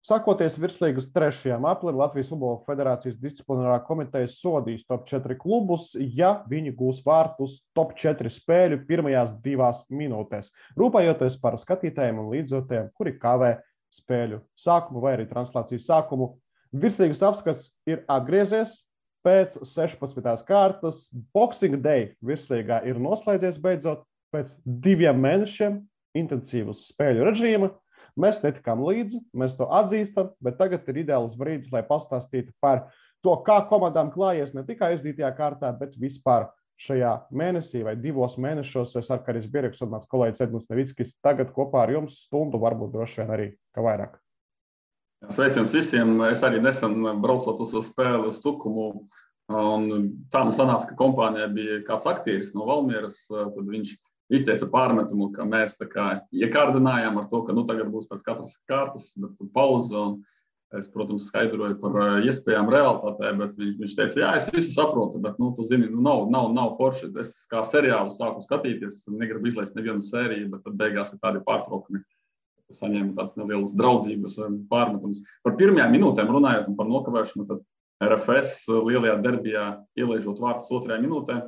Sakoties virslīgas 3. aplim, Latvijas Futbola Federācijas disciplinārā komiteja sodīs top 4 klubus, ja viņi gūs vārtus top 4 spēļu pirmajās 2 minūtēs, rūpējoties par skatītājiem un līdzjutējiem, kuri kavē spēļu sākumu vai arī translācijas sākumu. Virslīgas apskats ir atgriezies pēc 16. kārtas. Boxing Day virslīgā ir noslēdzies beidzot pēc 2 mēnešiem intensīvas spēļu režīma. Mēs netikām līdzi, mēs to atzīstam, bet tagad ir ideāls brīdis, lai pastāstītu par to, kā komandām klājies ne tikai aizdītajā kārtā, bet vispār šajā mēnesī vai 2 mēnešos. Es ar Karis Bieriks un mans kolēģis Edmunds Nevickis tagad kopā ar jums stundu, varbūt droši vien arī kā vairāk. Sveiciens visiem. Es arī nesen braucot uz spēli uz Tukumu, un tā nu sanāca, ka kompānijā bija kāds aktieris no Valmieras, tad viņš izteica pārmetumu, ka mēs tā kā iekārdinājām ar to, ka tagad būs pēc katras kārtas, bet pauze, un es, protams, skaidroju par iespējām realitātē, bet viņš teica, jā, es visu saprotu, bet, tu zini, nav forši. Es kā seriālu sāku skatīties, negribu izlaist nevienu sēriju, bet tad beigās ir tādi pārtraukumi. Saņēma tās nelielas draudzības pārmetums. Par pirmajām minūtēm runājot un par nokavēšanu, tad RFS lielajā derbijā ielaižot vārtus 2. minūtē,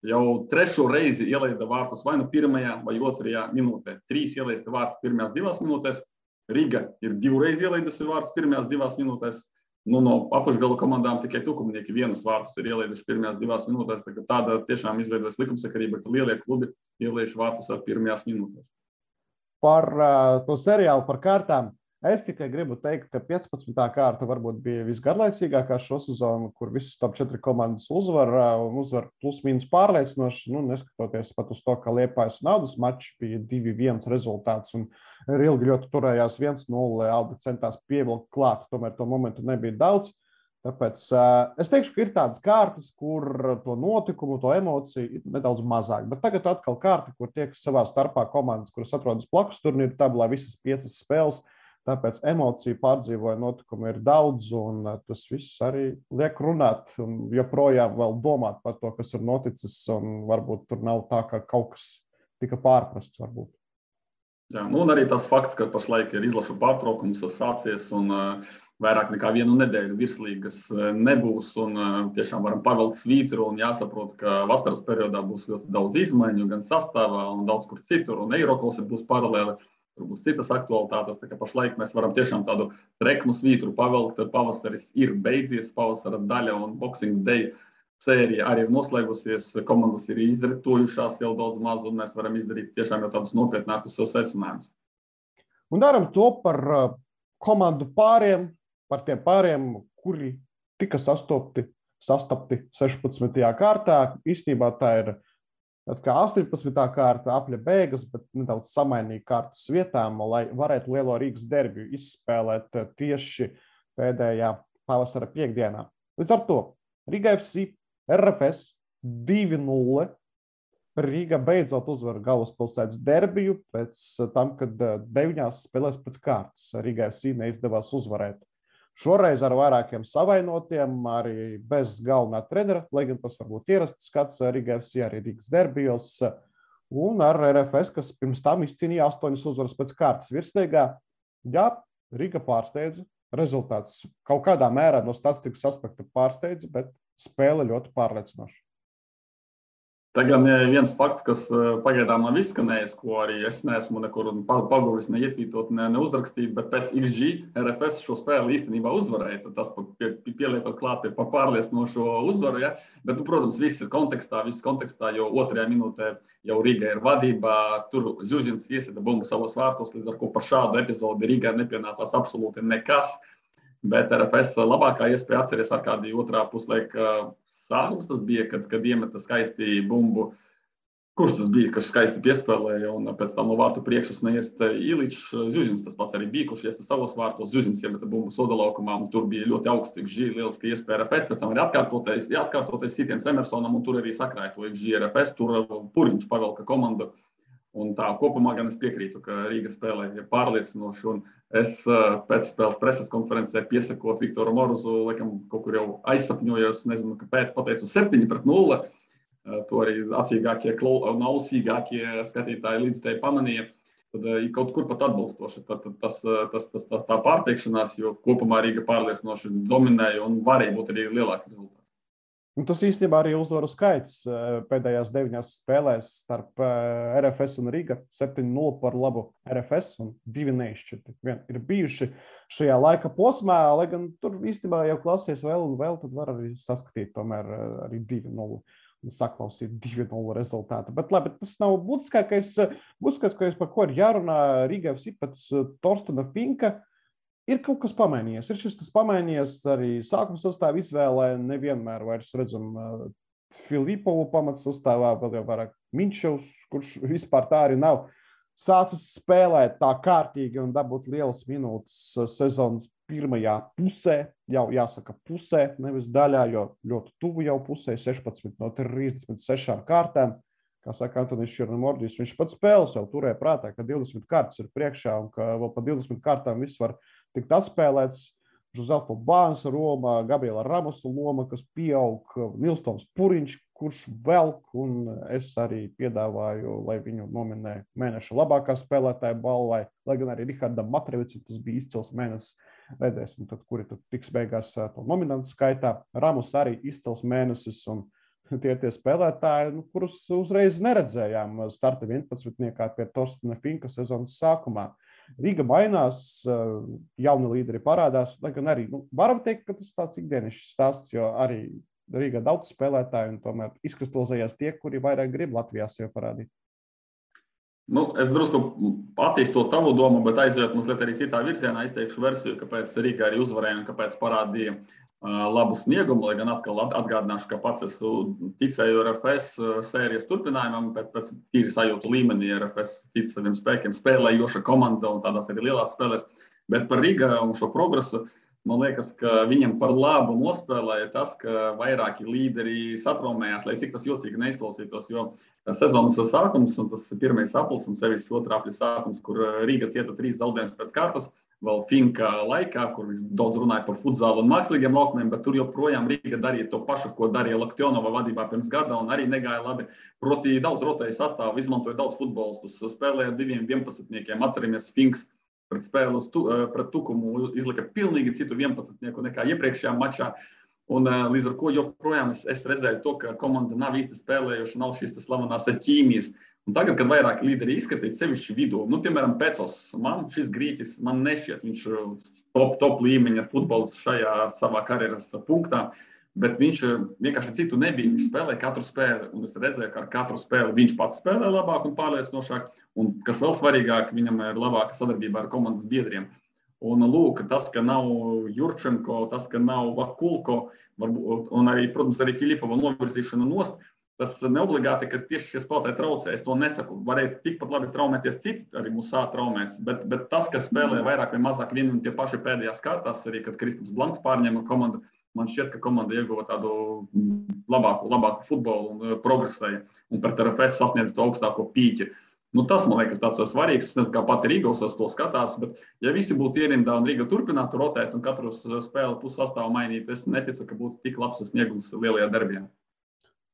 jau 3. reizi ielaida vārtus vai nu 1. vai 2. minūtē. 3 ielaista vārtus pirmajās 2 minūtēs. Riga ir 2 reizi ielaidusi vārtus pirmajās 2 minūtēs. No apakšgala komandām tikai Tukumnieki 1 vārtus ir ielaiduši pirmajās 2 minūtēs. Tāda tiešām izveidojas likumsakarība, ka lielie klubi ielaiž vārtus ar pirmajās minūtēs. Par to seriālu, par kārtām. Es tikai gribu teikt, ka 15. kārta varbūt bija visgarlaicīgākā šo sezonu, kur visas top 4 komandas uzvar plus-mínus pārliecinoši, neskatoties pat uz to, ka Liepājas un Audas mačs bija 2-1 rezultāts un ilgi ļoti turējās 1-0, Auda centās pievilkt klāt, tomēr to momentu nebija daudz. Tāpēc es teikšu, ka ir tādas kārtas, kur to notikumu, to emociju ir nedaudz mazāk. Bet tagad atkal kārta, kur tiekas savā starpā komandas, kuras atrodas blakus turnīru tabulā, visas 5 spēles. Tāpēc emociju pārdzīvoja notikumu ir daudz, un tas viss arī liek runāt un joprojām vēl domāt par to, kas ir noticis, un varbūt tur nav tā, ka kaut kas tika pārprasts varbūt. Jā, un arī tas fakts, ka pašlaik ir izlašu pārtraukums sācies, un vairāk nekā 1 nedēļu virslīgas nebūs, un tiešām varam pavilkt svītru, un jāsaprot, ka vasaras periodā būs ļoti daudz izmaiņu, gan sastāvā, un daudz kur citur, un Eirokols būs paralēli. Tur būs citas aktualitātes, tā kā pašlaik mēs varam tiešām tādu treknu svītru pavilkt. Pavasaris ir beidzies, pavasara daļa un Boxing Day sērija arī ir noslēgusies. Komandas ir izritojušās jau daudz maz, un mēs varam izdarīt tiešām jau tādus nopietnākus secinājumus. Un daram to par komandu pāriem, par tiem pāriem, kuri tika sastapti 16. kārtā. Īstenībā tā ir kā 18. kārta apļa beigas, bet nedaudz samainīja kārtas vietām, lai varētu lielo Rīgas derbiju izspēlēt tieši pēdējā pavasara piekdienā. Līdz ar to Riga FC, RFS 2-0. Rīga beidzot uzvar galvaspilsētas derbiju pēc tam, kad 9 spēlēs pēc kārtas Riga FC neizdevās uzvarēt. Šoreiz ar vairākiem savainotiem, arī bez galvenā trenera, lai gan tas varbūt ierasts skats Riga FC arī Rīgas derbijos, un ar RFS, kas pirms tam izcīnīja 8 uzvaras pēc kārtas virslīgā. Jā, Riga pārsteidza, rezultāts kaut kādā mērā no statistikas aspekta pārsteidza, bet spēle ļoti pārliecinoša. Tagad viens fakts, kas pagaidām nav izskanējis, ko arī es neesmu nekur paguvis, neietvītot, neuzrakstīt, bet pēc XG RFS šo spēli īstenībā uzvarēja. Tas pieliekot klāt par pārliecinošo uzvaru. Ja? Bet, protams, viss kontekstā, jo 2. minūtē jau Riga ir vadībā. Tur Zuzins iesita bumbu savos vārtos, līdz ar ko par šādu epizodi Rigai nepienācās absolūti nekas. Bet RFS labākā iespēja atceries ar kādu 2. puslaika sākums. Tas bija, kad iemeta skaisti bumbu. Kurš tas bija, kas skaisti piespēlēja, un pēc tam no vārtu priekšas neiesta Iličs. Zuzins tas pats arī bija, kurš iesta savos vārtos. Zuzins iemeta bumbu sodalaukumā, un tur bija ļoti augsts XG, lieliski iespēja RFS. Pēc tam arī atkārtotais sitiens Emersonam, un tur arī sakrāja to XG RFS. Tur Puriņš pavelka komandu. Un tā kopumā gan es piekrītu, ka Rīga spēlē ir pārliecinoši, un es pēc spēles preses konferencē piesakot Viktoru Moruzu, laikam kaut kur jau aizsapņojos, nezinu, kāpēc pateicu 7-0. To arī acīgākie un ausīgākie skatītāji līdzstēji pamanīja. tad kaut kur pat atbalstoši. Tā pārteikšanās, jo kopumā Rīga pārliecinoši dominēja un varēja būt arī lielāks rezultāts. Tas īstenībā arī uzvaru skaits pēdējās 9 spēlēs starp RFS un Riga 7-0 par labu RFS un 2 neizšķirti. Ir bijuši šajā laika posmā, lai gan tur īstenībā jau klausies vēl un vēl, tad var arī saskatīt tomēr arī 2-0 un saklausīt 2-0 rezultātu. Bet labi, tas nav būtiskākais, par ko ir jārunā Riga FC pēc Torstena Finka. Ir kaut kas pamainījies. Ir šis tas pamainījies arī sākuma sastāvā izvēlē. Nevienmēr vairs redzam Filipovu pamats sastāvā, vēl jau vairāk Minčevs, kurš vispār tā arī nav sācis spēlēt tā kārtīgi un dabūt lielas minūtes sezonas pirmajā pusē. Jau jāsaka pusē, nevis daļā, jo ļoti tuvu jau pusē, 16 no 36 kārtām. Kā saka Antonis Černomordijs, viņš pats spēles jau turēja prātā, ka 20 kārtas ir priekšā un ka vēl pa 20 kārtām viss var tikt atspēlēts. Žuzelfo Bāns Roma, Gabriela Ramosa loma, kas pieaug, Nilstons Puriņš, kurš velk, un es arī piedāvāju, lai viņu nominē mēneša labākā spēlētāja balvai, lai gan arī Rihardam Matrevicam tas bija izcils mēnesis. Redzēsim, tad, kuri tad tiks beigās to nominantu skaitā. Ramos arī izcils mēnesis, un tie spēlētāji, kurus uzreiz neredzējām starta 11. pie Torstena Finka sezonas sākumā. Riga mainās, jauni līderi parādās, lai gan arī, varam teikt, ka tas tāds ikdienišs stāsts, jo arī Rīgā daudz spēlētāju un tomēr izkristalizējās tie, kuri vairāk grib Latvijā sev parādīt. Es drusku attīstot tavu domu, bet aizejot mazliet arī citā virzienā, izteikšu versiju, kāpēc Rīga arī uzvarēja un kāpēc parādīja labu sniegumu, lai gan atkal atgādināšu, ka pats es ticēju RFS sērijas turpinājumam, pēc tīri sajūtu līmenī RFS tic saviem spēkiem, spēlējoša komanda un tādās arī lielās spēlēs. Bet par Riga un šo progresu, man liekas, ka viņam par labu nospēlēja tas, ka vairāki līderi satraumējās, lai cik tas jocīgi neizklausītos, jo sezonas sākums un tas pirmais aplis un sevišķi otrā apļa sākums, kur Riga cieta 3 zaudējumus pēc kārtas, vēl Finka laikā, kur viņš daudz runāja par futzālu un mākslīgiem laukumiem, bet tur joprojām Riga darīja to pašu, ko darīja Laktionova vadībā pirms gada, un arī negāja labi. Proti daudz rotēja sastāvu, izmantoja daudz futbolistus, spēlēja ar 2 11-niekiem. Atceramies, Finks pret spēli pret Tukumu izlika pilnīgi citu 11-nieku nekā iepriekšējā mačā. Un līdz ar ko joprojām es redzēju to, ka komanda nav īsti spēlējuši, nav šīs slavenās ķīmijas. Un tagad, kad vairāk līderi izskatīt sevišķi vidū, piemēram, Pecos, man šis grieķis, man nešķiet, viņš top līmeņa futbolists šajā savā karjeras punktā, bet viņš vienkārši citu nebija, viņš spēlēja katru spēli, un es redzēju, ka ar katru spēli viņš pats spēlē labāk un pārliecinošāk, un kas vēl svarīgāk, viņam ir labāka sadarbība ar komandas biedriem. Un lūk, tas, ka nav Jurčenko, tas, ka nav Vakulko, un arī, protams, arī Filipova novirzīšana nost, tas neobligāti, ka tieši šie spēlētāji traucē. Es to nesaku. Varēja tikpat labi traumēties citi, arī Musā traumēs, bet tas, kas spēlē vairāk vai mazāk vien un tie paši pēdējās kārtās, arī kad Kristaps Blanks pārņēma komandu, man šķiet, ka komanda ieguva tādu labāku futbolu un progresēja un pret RFS sasniedz to augstāko pīķi. Tas, man liekas, tāds svarīgs. Es nezinu, kā pati Rīga uz to skatās, bet ja visi būtu ierindā un Rīga turpinātu rotēt un katru spēli pussastāvu mainīt, es neticu, ka būtu tik labs sniegums lielajā derbijā.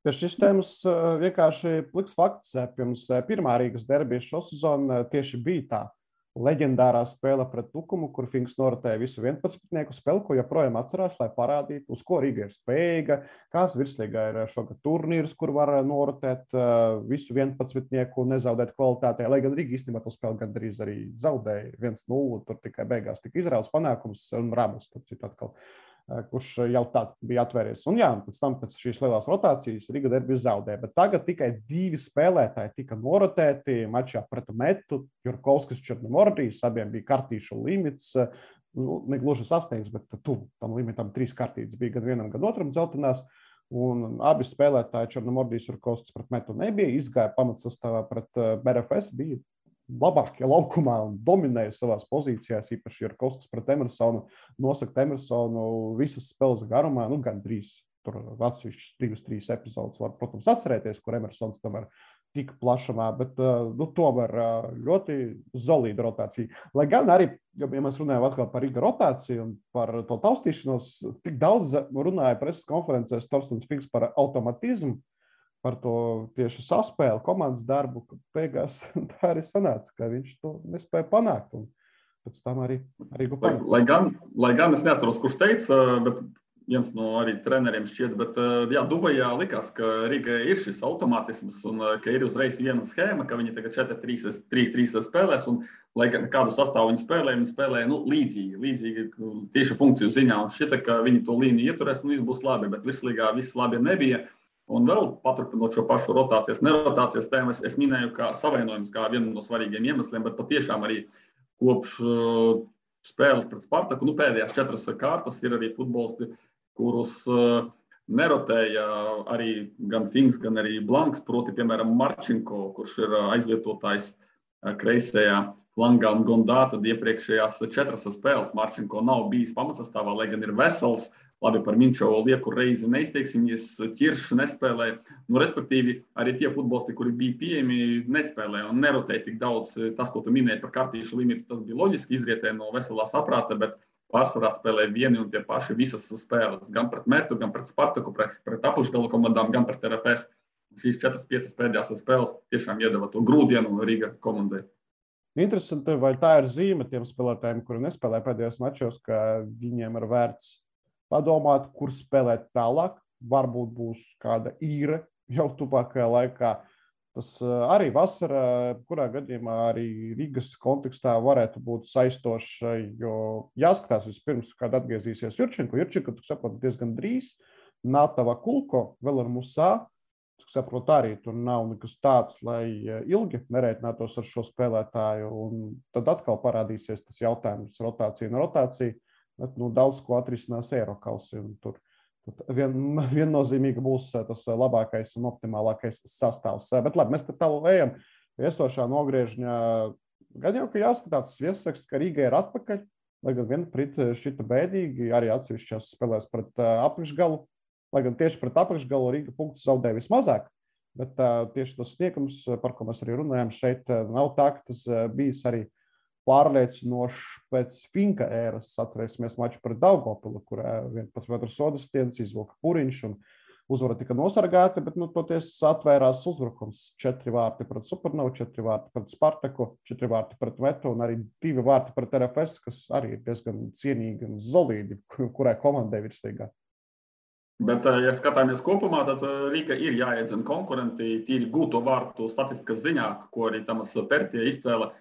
Šis tēmas vienkārši pliks fakts. Pirms pirmā Rīgas derbija šo sezonu tieši bija tā leģendārā spēle pret Tukumu, kur Finks norotēja visu 11-nieku spēli, ko joprojām atcerās, lai parādītu, uz ko Rīga ir spējīga, kāds virslīgā ir šogad turnīrs, kur var norotēt visu 11-nieku un nezaudēt kvalitātē, lai gan Rīga īstenībā to spēli gandrīz arī zaudēja 1-0, tur tikai beigās tika izrauts panākums un Ramos, atkal, kurš jau tā bija atvēries. Un jā, pēc šīs lielās rotācijas Riga derbiju zaudēja, bet tagad tikai 2 spēlētāji tika norotēti mačā pret Metu, Jurkovskis, Černomordijs, abiem bija kartīšu limits, negluži sasniegts, bet tuvu tam limitam 3 kartītes bija gan vienam, gan otram dzeltenās, un abi spēlētāji Černomordijs, Jurkovskis pret Metu nebija, izgāja pamatsastāvā pret RFS, bija labākie laukumā un dominēja savās pozīcijās, īpaši Jurkovskis pret Emersonu, nosaka Emersonu visas spēles garumā, gandrīz tur atsevišķas 2-3 epizodes var, protams, atcerēties, kur Emersons tomēr tika plašumā, bet tomēr ļoti solīda rotācija. Lai gan arī, ja mēs runājam atkal par Riga rotāciju un par to taustīšanos, tik daudz runāja preses konferencēs Torstens Finks par automatismu, par to tieši saspēli, komandas darbu, ka beigās tā arī sanāca, ka viņš to nespēja panākt. Un pēc tam arī panākt. Lai gan es neatceros, kurš teica, bet viens no arī treneriem šķiet, bet jā, Dubajā likās, ka Rigai ir šis automātisms un ka ir uzreiz viena schēma, ka viņi tagad 4-3-3 spēlēs un lai kādu sastāvu viņi spēlē līdzīgi tieši funkciju ziņā un šķita, ka viņi to līniju ieturēs un viss būs labi, bet virslīgā viss labi nebija. Un vēl paturpinot šo pašu nerotācijas tēmu, es minēju, ka savainojums kā vienu no svarīgiem iemesliem, bet patiešām arī kopš spēles pret Spartaku, pēdējās 4 kārtas ir arī futbolisti, kurus nerotēja arī gan Finks, gan arī Blanks, proti, piemēram, Marčinko, kurš ir aizvietotājs kreisajā flangā un Gondā, tad iepriekšējās 4 spēles Marčinko nav bijis pamatsastāvā, lai gan ir vesels. Labi, par Minčovu lieku reizi neizteiksimies, Ķiršs nespēlē. Respektīvi, arī tie futbolisti, kuri bija pieejami, nespēlē un nerotēja tik daudz. Tas, ko tu minēji par kartīšu limitu, tas bija loģiski, izrietē no veselā saprāta, bet pārsvarā spēlē vieni un tie paši visas spēles. Gan pret Metu, gan pret Spartaku, pret apakšgalu komandām, gan pret RFS. Šīs 4-5 pēdējās spēles tiešām iedeva to grūdienu Riga komandai. Interesanti, vai tā ir zīme tiem spēlētājiem, kuri nespēlē pēdējos mačos, ka viņiem ir vērts padomāt, kur spēlēt tālāk. Varbūt būs kāda īre jau tuvākajā laikā. Tas arī vasarā, kurā gadījumā arī Rīgas kontekstā varētu būt saistošs, jo jāskatās vispirms, kad atgriezīsies Jurčenko. Jurčenko, tu saproti, diezgan drīz. Natava Kulko, vēl ar Musā. Tu saproti, arī tur nav nekas tāds, lai ilgi nerēķinātos ar šo spēlētāju. Un tad atkal parādīsies tas jautājums rotācija un rotācija. Bet, daudz ko atrisinās Eirokausi. Tur viennozīmīgi būs tas labākais un optimālākais sastāvs. Bet labi, mēs tālu ejam viesošā nogriežņā. Gan jau, ka jāskatās viesraksts, ka Rīga ir atpakaļ, lai gan viena prit šķita bēdīgi, arī atsevišķās spēlēs pret apakšgalu. Lai gan tieši pret apakšgalu Rīga punktus zaudēja vismazāk, bet tieši tas sniegums, par ko mēs arī runājam šeit, nav tā, ka tas bijis arī pārliecinošs pēc Finka ēras. Atcerēsimies maču pret Daugavpili, kurā 11 metru sodas stiedas izvilka Puriņš un uzvara tika nosargāta, bet toties atvērās uzbrukums. 4 vārti pret Supernovu, 4 vārti pret Spartaku, 4 vārti pret Metu un arī 2 vārti pret RFS, kas arī ir diezgan cienīgi un solīdi, kurai komandai virslīgā. Bet, ja skatāmies kopumā, tad Rīga ir jāiedzina konkurenti tīri gūto vārtu statistikas ziņā, ko arī Tamas Pertie izcēla.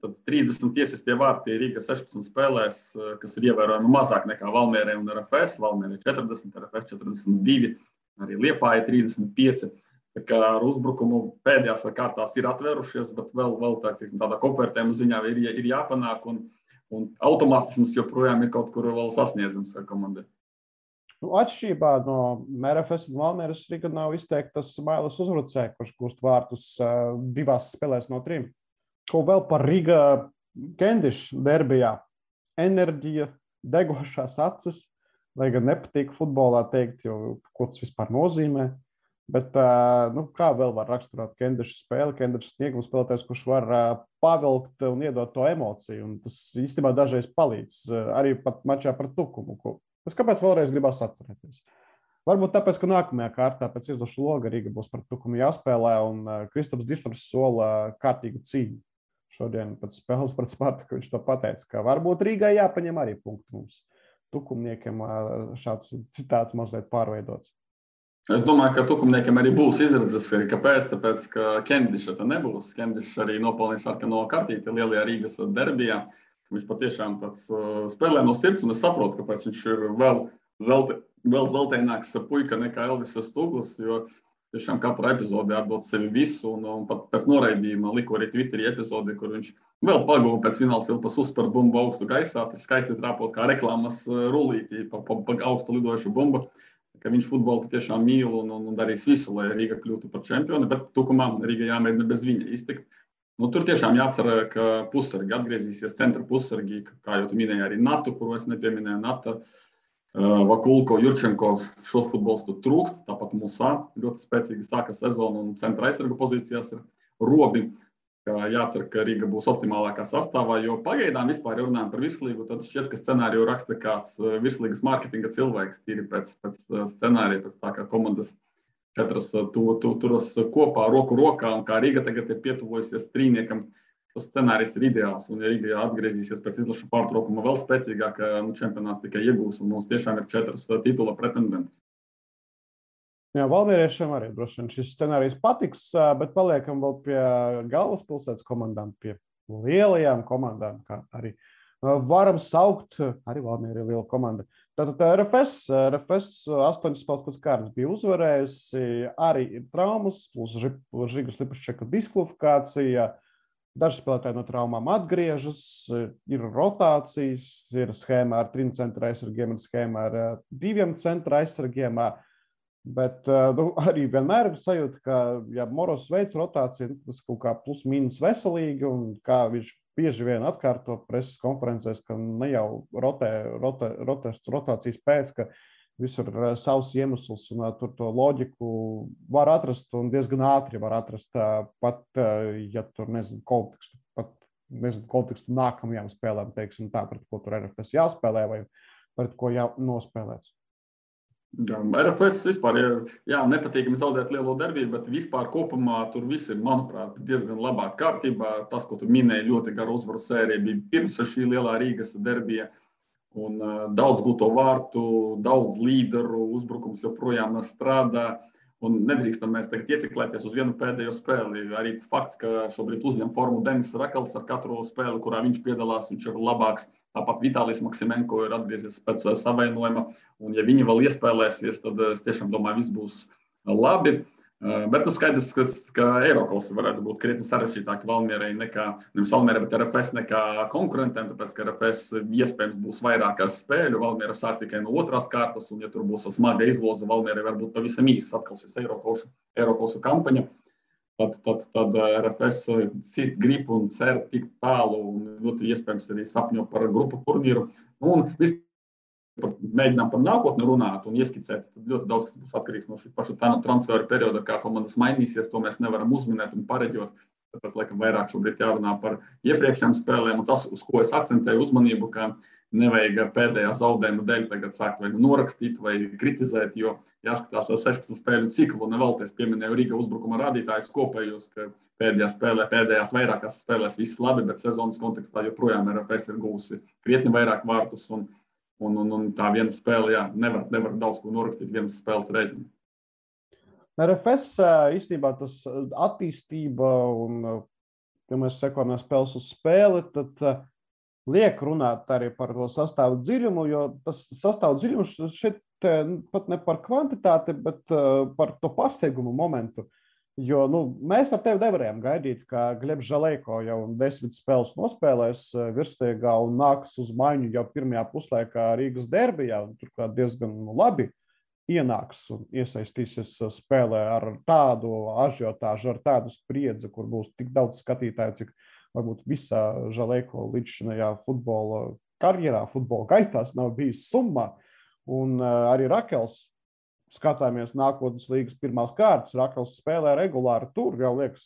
Tad 30 tiesistie vārti Rīga 16 spēlēs, kas ir ievērojami mazāk nekā Valmierē un RFS. Valmierē 40, RFS 42, arī Liepāja 35. Tā kā ar uzbrukumu pēdējās kārtās ir atvērušies, bet vēl tādā kopvērtējuma ziņā ir jāpanāk un automātisms joprojām ir kaut kur vēl sasniedzams komandai. Atšķirībā no RFS un Valmieras Rīga nav izteiktas Mailas uzbrucēji, kurš gūst vārtus 2 spēlēs no 3. Ko vēl par Riga Kendiša derbijā? Enerģija, degošās acis, lai gan nepatīk futbolā teikt, jo ko tas vispār nozīmē. Bet kā vēl var raksturot Kendiša spēli? Kendiša sniegums spēlētājs, kurš var pavilkt un iedot to emociju. Un tas īstenībā dažreiz palīdz arī pat mačā par Tukumu. Es kāpēc vēlreiz gribās atcerēties? Varbūt tāpēc, ka nākamajā kārtā pēc izlašu loga Riga būs par Tukumu jāspēlē un Kristaps Dišmars sola kārtīgu cīņu. Šodien pēc spēles pret Spartaku viņš to pateica, ka varbūt Rīgai jāpaņem arī punktu mums. Tukumniekiem šāds citāts mazliet pārveidots. Es domāju, ka Tukumniekiem arī būs izredzes. Kāpēc? Tāpēc, ka Kendiša te nebūs. Kendiša arī nopelnīja sarkano kartīti lielajā Rīgas derbijā. Viņš patiešām tāds spēlē no sirds, un es saprotu, kāpēc viņš ir vēl zeltaināks puika nekā Elvis Stuglis, jo tiešām katrā epizodē atdot sevi visu, un pat pēc noraidījuma liku arī Twitterī epizodi, kur viņš vēl paguva pēc fināls ilpas uzspērt bumbu augstu gaisā, skaisti trāpot kā reklāmas rullītī pa augstu lidojušu bumbu, ka viņš futbolu patiešām mīl un darīs visu, lai Rīga kļūtu par čempioni, bet Tukumā Rīga jāmēģina bez viņa iztikt. Tur tiešām jācer, ka pussargi atgriezīsies centra pussargi, kā jau tu minēji arī Natu, kuru es nepieminēju, Nata, Vakulko, Jurčenko šo futbolistu trūkst, tāpat Musā ļoti spēcīgi sāka sezonu un centra aizsargu pozīcijās ir Robi. Jācer, ka Rīga būs optimālākā sastāvā, jo pagaidām vispār, ja runājam par virslīgu, tad šķiet, ka scenāriju raksta kāds virslīgas mārketinga cilvēks, tīri pēc scenārija, pēc tā kā komandas Katrs turas kopā, roku rokā, un kā Rīga tagad ir pietuvojusies trīniekam, tas scenārijs ir ideāls. Un, ja Rīga atgriezīsies pēc izlašu pārtraukuma vēl spēcīgāk, čempionāts tikai iegūs, un mums tiešām ir 4 titula pretendenti. Jā, valmieriešiem arī droši vien šis scenārijs patiks, bet paliekam vēl pie galvaspilsētas komandām, pie lielajām komandām, kā arī varam saukt, arī Valmiera ir liela komanda. Tātad RFS 8 spēles pēc kārtas bija uzvarējusi, arī ir traumas, plus Žigas Lipuščeka diskvalifikācija, daži spēlētāji no traumām atgriežas, ir rotācijas, ir schēma ar 3 centra aizsargiem un schēma ar 2 centra aizsargiem, bet arī vienmēr ir sajūta, ka, ja Moros veids rotāciju, tas kaut kā plus mīnus veselīgi, un kā viņš bieži vien atkārto preses konferencēs, ka ne jau rotācijas pēc, ka visur ir savs iemesls, un tur to loģiku var atrast un diezgan ātri var atrast, pat, ja tur kontekstu nākamajām spēlēm, teiksim tā, pret ko tur RFS jāspēlē vai pret ko nospēlēts. RFS vispār ir nepatīkami zaudēt lielo darbību, bet vispār kopumā tur viss ir, manuprāt, diezgan labā kārtībā. Tas, ko tu minēji, ļoti gara uzvaru sērija bija pirms šī lielā Rīgas derbija. Un daudz gūto vārtu, daudz līderu, uzbrukums joprojām strādā. Un nedrīkstam mēs tagad ieciklēties uz vienu pēdējo spēli. Arī fakts, ka šobrīd uzņem formu Denis Rakels ar katru spēli, kurā viņš piedalās, viņš ir labāks. Tāpat Vitālijs Maksimenko ir atgriezies pēc savainojuma. Un, ja viņi vēl iespēlēsies, tad es tiešām domāju, viss būs labi. Bet skaidrs, ka Eirokosi varētu būt krietni sarežģītāki Valmierai nekā, nevis Valmierai, bet RFS nekā konkurentiem, tāpēc, ka RFS iespējams būs vairāk ar spēļu. Valmiera sāk tikai no otrās kārtas, un ja tur būs smaga izloze, Valmierai varbūt pavisam īsts atkal šis Eirokosu kampaņa. Tad RFS grib un cer tik tālu, un ļoti iespējams arī sapņo par grupu turnīru. Un mēģinām par nākotni runāt un ieskicēt. Tad ļoti daudz kas būs atkarīgs no šī paša transferu perioda, kā komandas mainīsies, to mēs nevaram uzminēt un pareģot. Tāpēc, laikam, vairāk šobrīd jārunā par iepriekšējām spēlēm, un tas, uz ko es akcentēju uzmanību, ka nevajag pēdējā zaudējuma dēļ tagad sākt vai norakstīt vai kritizēt, jo jāskatās 16 spēļu ciklu, un nevēlties pieminēju Rīga uzbrukuma rādītājus kopējos, ka pēdējās vairākās spēlēs viss labi, bet sezonas kontekstā joprojām RFS ir gūsi krietni vairāk vārtus, un tā viena spēle, nevar daudz ko norakstīt vienas spēles rēķinu. RFS īstenībā tas attīstība, un, ja mēs sekojam no spēles uz spēli, tad liek runāt arī par to sastāvu dziļumu, jo tas sastāvu dziļums šeit pat ne par kvantitāti, bet par to pārsteigumu momentu. Jo mēs ar tevi nevarējām gaidīt, ka Glebs Žalejko jau 10 spēles nospēlēs virsliegā un nāks uz maiņu jau pirmajā puslaikā Rīgas derbijā, un turklāt diezgan labi ienāks un iesaistīsies spēlē ar tādu ažiotāžu, ar tādu spriedzi, kur būs tik daudz skatītāju, cik varbūt visā Žalejko līdzšinējā futbola karjerā, futbola gaitās nav bijis summā. Un arī Rakels, skatāmies nākotnes līgas pirmās kārtas, Rakels spēlē regulāri tur, jau liekas,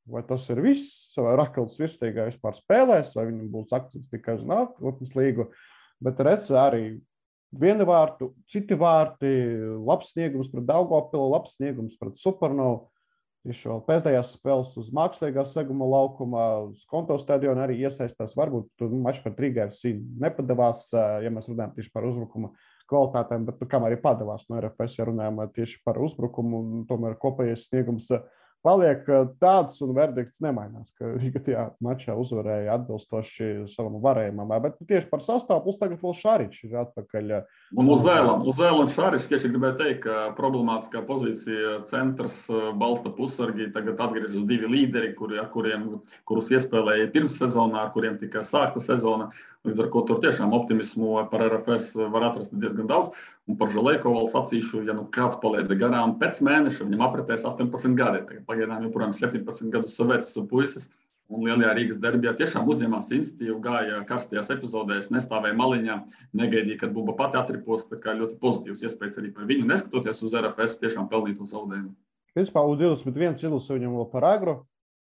vai tas ir viss, vai Rakels virsliegā vispār spēlēs, vai viņam būs akcents tikai uz nākotnes līgu, bet redz arī viena vārtu, citi vārti, labs sniegums pret Daugavpilu, labs sniegums pret Supernovu. Tieši vēl pēdējās spēles uz mākslīgā seguma laukumā, uz Konto stadionu arī iesaistās. Varbūt mačs pret Rīgai FC nepadavās, ja mēs runājam tieši par uzbrukuma kvalitātēm, bet kam arī padavās no RFS, ja runājam tieši par uzbrukumu, tomēr kopējais sniegums paliek tāds un verdikts nemainās, ka Rīga tajā mačā uzvarēja atbilstoši savam varējumam. Bet tieši par sastāvu, plus tagad vēl Šaričs ir atpakaļ. Un uz Zēlam Šaričs, tieši gribēju teikt, ka problemātiskā pozīcija centrs balsta pusargi, tagad atgriežas 2 līderi, kurus iespēlēja pirms sezonā, ar kuriem tika sākta sezona. Līdz ar ko tur tiešām optimismu par RFS var atrast diezgan daudz. Un par Žalejko vēl sacīšu, ja kāds paliek garām pēc mēneša, viņam apritēs 18 gadi. Pagaidām joprojām 17 gadus vecs puisis. Un lielajā Rīgas derbijā tiešām uzņēmās iniciatīvu, gāja karstajās epizodēs, nestāvēja maliņā, negaidīja, kad Buba pati atripos. Tā kā ļoti pozitīvs iespējas arī par viņu, neskatoties uz RFS tiešām pelnīto zaudējumu. Principā U21 izlasa viņam vēl par agru,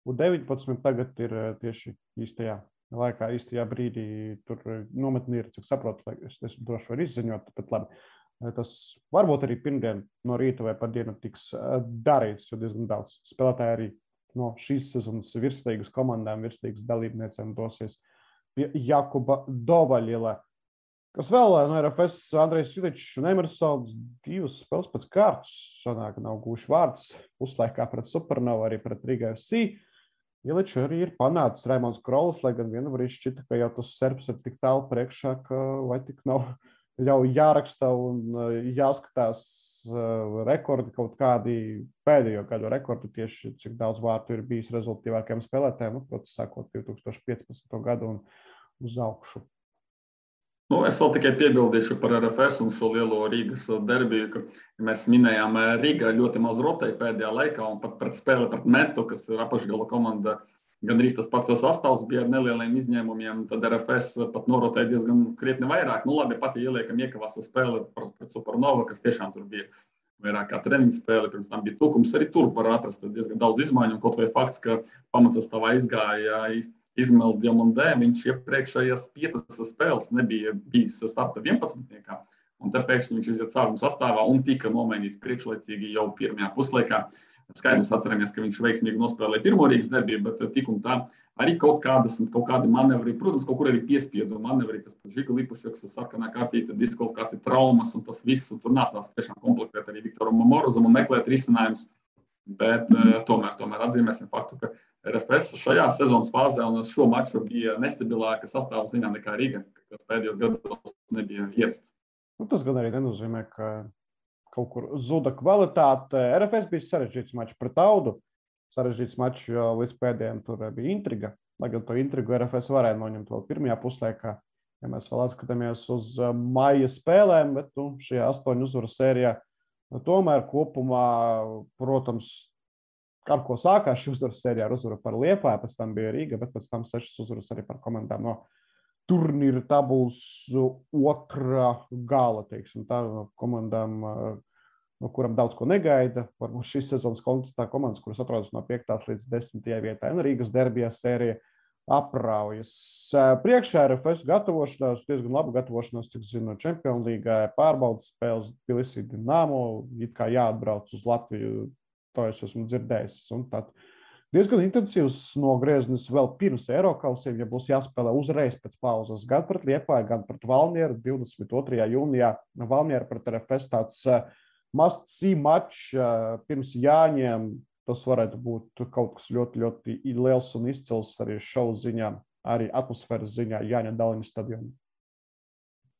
U19 tagad ir tieši īstajā laikā, īstajā brīdī tur nometni ir, cik saprotu, es droši varu izziņot, bet labi. tas varbūt arī pirmdien no rīta vai pat dienu tiks darīts, jo diezgan daudz spēlētāji arī no šīs sezonas virslīgas komandām, virslīgas dalībniecēm dosies pie Jakuba Dovaļila. Kas vēl no RFS Andrejs Iličs un Emersons 2 spēles pēc kārtas, sanāk, nav gūši vārds, puslaikā pret Supernovu, arī pret Riga FC. Iličs arī ir panācis Raimons Krolis, lai gan vienu brīdi šķita, ka jau tas serbs ir tik tālu priekšā, ka vai tik nav jau jāraksta un jāskatās rekordi kaut kādi pēdējo gadu rekordi tieši, cik daudz vārtu ir bijis rezultātīvākajiem spēlētājiem, protams, sākot 2015. gadu un uz augšu. Es vēl tikai piebildīšu par RFS un šo lielo Rīgas derbiju, ka mēs minējām, Rīga ļoti maz rotēja pēdējā laikā un pat pret spēli pret Metu, kas ir apakšgala komanda, gandrīz tas pats sastāvs bija ar nelieliem izņēmumiem, tad RFS pat norotēja diezgan krietni vairāk. Labi, pat ja ieliekam iekavās uz spēli pret Supernova, kas tiešām tur bija vairāk kā treniņu spēle, pirms tam bija tukums, arī tur var atrast diezgan daudz izmaiņu, un kaut vai fakts, ka pamatsastāvā izgāja Izmails Diamandē, viņš iepriekšējās 5 spēles nebija bijis starta 11. Un te pēkšņi viņš iziet sākuma sastāvā un tika nomainīts priekšlaicīgi jau pirmajā puslaikā. Skaidrs atceramies, ka viņš veiksmīgi nospēlēja pirmo Rīgas derbiju, bet tik un tā arī kaut kādi manevri, protams, kaut kur arī piespiedu manevri, tas pats Žiga Lipušeks, sarkanā kārtīte, diskvalifikācija, traumas un tas viss, un tur nācās tiešām komplektēt arī Viktoram Morozam un meklēt risinājumus. Bet tomēr atzīmēsim faktu, ka RFS šajā sezonas fāzē un šo maču bija nestabilāka sastāvā ziņā nekā Riga, kas pēdējos gados nebija ierasts. Tas gan arī nenozīmē, ka kaut kur zuda kvalitāte. RFS bija sarežģīts mačs pret Audu. Sarežģīts mačs, jo līdz pēdējiem tur bija intriga. Lai gan to intrigu RFS varēja noņemt vēl pirmajā puslaikā, ja mēs vēl atskatāmies uz maija spēlēm, bet šajā 8 uzvaru sērijā tomēr kopumā, protams, ar ko sākās šī uzvaru sērijā ar uzvaru par Liepāju, pēc tam bija Rīga, bet pēc tam 6 uzvaras arī par komandām no turnīra tabulas otrā gala, teiksim, tā no komandām, no kuram daudz ko negaida. Varbūt šīs sezonas kontekstā komandas, kuras atrodas no 5. līdz 10. vietai, un Rīgas derbijā sērija apraujas. Priekšā RFS gatavošanās, diezgan labu gatavošanās, cik zinu, Čempionu līgā, pārbaudas spēles Tbilisī Dinamo, it kā jāatbrauc uz Latviju, to es esmu dzirdējis. Un tad diezgan intensīvs nogrieznis vēl pirms Eirokausiem, ja būs jāspēlē uzreiz pēc pauzes, gan pret Liepāju, gan pret Valmieru 22. jūnijā. Valmiera pret RFS tāds must-see mačs pirms Jāņiem. Tas varētu būt kaut kas ļoti, ļoti liels un izcils arī šovu ziņā, arī atmosfēras ziņā Jāņa Daliņa stadionā.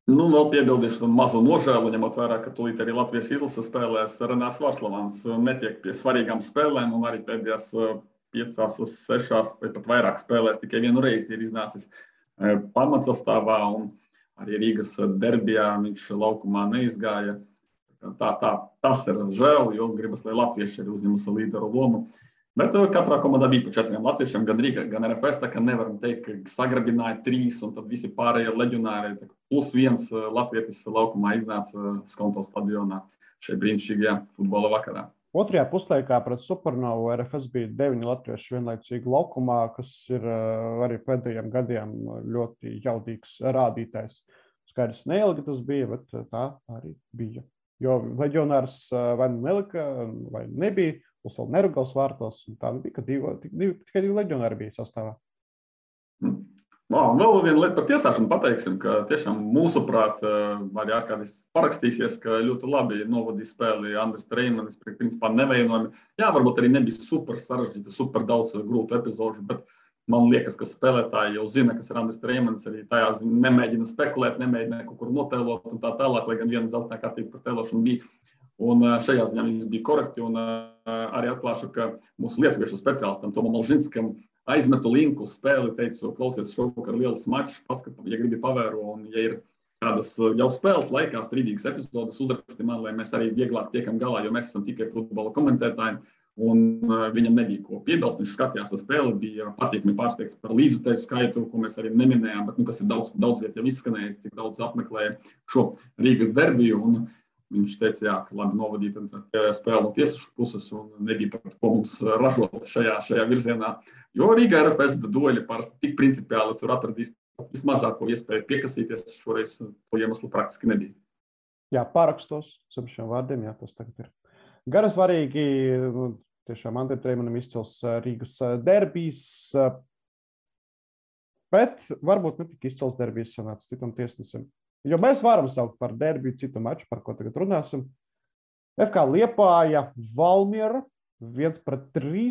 Vēl piebildīšu mazu nožēlu, ņemot vērā, ka tūlīt arī Latvijas izlase spēlēs Renārs Vārslavāns netiek pie svarīgām spēlēm un arī pēdējās 5, 6 vai pat vairāk spēlēs tikai vienu reizi ir iznācis pamatsastāvā un arī Rīgas derbijā viņš laukumā neizgāja. Tas ir žēl, jo gribas, lai latvieši arī uzņemas līderu lomu. Bet katrā komandā bija pa 4 latviešiem, gan Rīga, gan RFS, tā kā nevaram teikt, ka sagrabināja 3 un tad visi pārējie leģionāri. +1 latvietis laukumā iznāca Skonto stadionā šajā brīnišķīgajā futbola vakarā. Otrajā puslaikā pret Supernovu RFS bija 9 latvieši vienlaicīgi laukumā, kas ir arī pēdējiem gadiem ļoti jaudīgs rādītājs. Skaidrs neilgi tas bija, bet tā arī bija. Jo leģionārs vai nelika, vai nebija, plus vēl Nerugals vārtos, un tā bija, ka tikai 2 leģionāri bija sastāvā. Vēl viena lieta par tiesāšanu pateiksim, ka tiešām mūsuprāt arī ārkādīs parakstīsies, ka ļoti labi novadīja spēli Andris Treimanis, principā nevainojami. Jā, varbūt arī nebija super sarežģīta, super daudz grūtu epizožu, bet man liekas, ka spēlētāji jau zina, kas ir Andris Treimanis, arī tajā nemēģina spekulēt, nemēģina kaut kur notēlot un tā tālāk, lai gan viena dzeltenā kārtība par tēlošanu bija. Un šajā ziņā viss bija korekti un arī atklāšu, ka mūsu lietuviešu speciālistam Tomam Alžinskam aizmetu linku uz spēli, teicu, klausies šovakar lielas mačs, paskat, ja gribi pavēro un ja ir kādas jau spēles laikā strīdīgas epizodes, uzraksti man, lai mēs arī vieglāk tiekam galā, jo mēs esam tikai futbola komentētāji. Un viņam nebija ko piebilst. Viņš skatījās ar spēli, bija patīkami pārsteigts par līdzutēju skaitu, ko mēs arī neminējām, bet kas ir daudz viet jau izskanējis, cik daudz apmeklēja šo Rīgas derbiju. Un viņš teica, jā, ka labi novadīta spēle no tiesašu puses un nebija pat ko mums ražot šajā virzienā. Jo Rīgā RFS dueļi parasti tik principiāli tur atradīs vismazāko iespēju piekasīties. Šoreiz to iemeslu praktiski nebija. Jā, pārakstos zem šiem vārdiem, jā, tas tagad ir. Gan svarīgi, tiešām Andriem Treimanim izcils Rīgas derbijs, bet varbūt ne tik izcils derbijs sanāca citam tiesnesim. Jo mēs varam saukt par derbiju citu maču, par ko tagad runāsim. FK Liepāja, Valmiera, 1-3,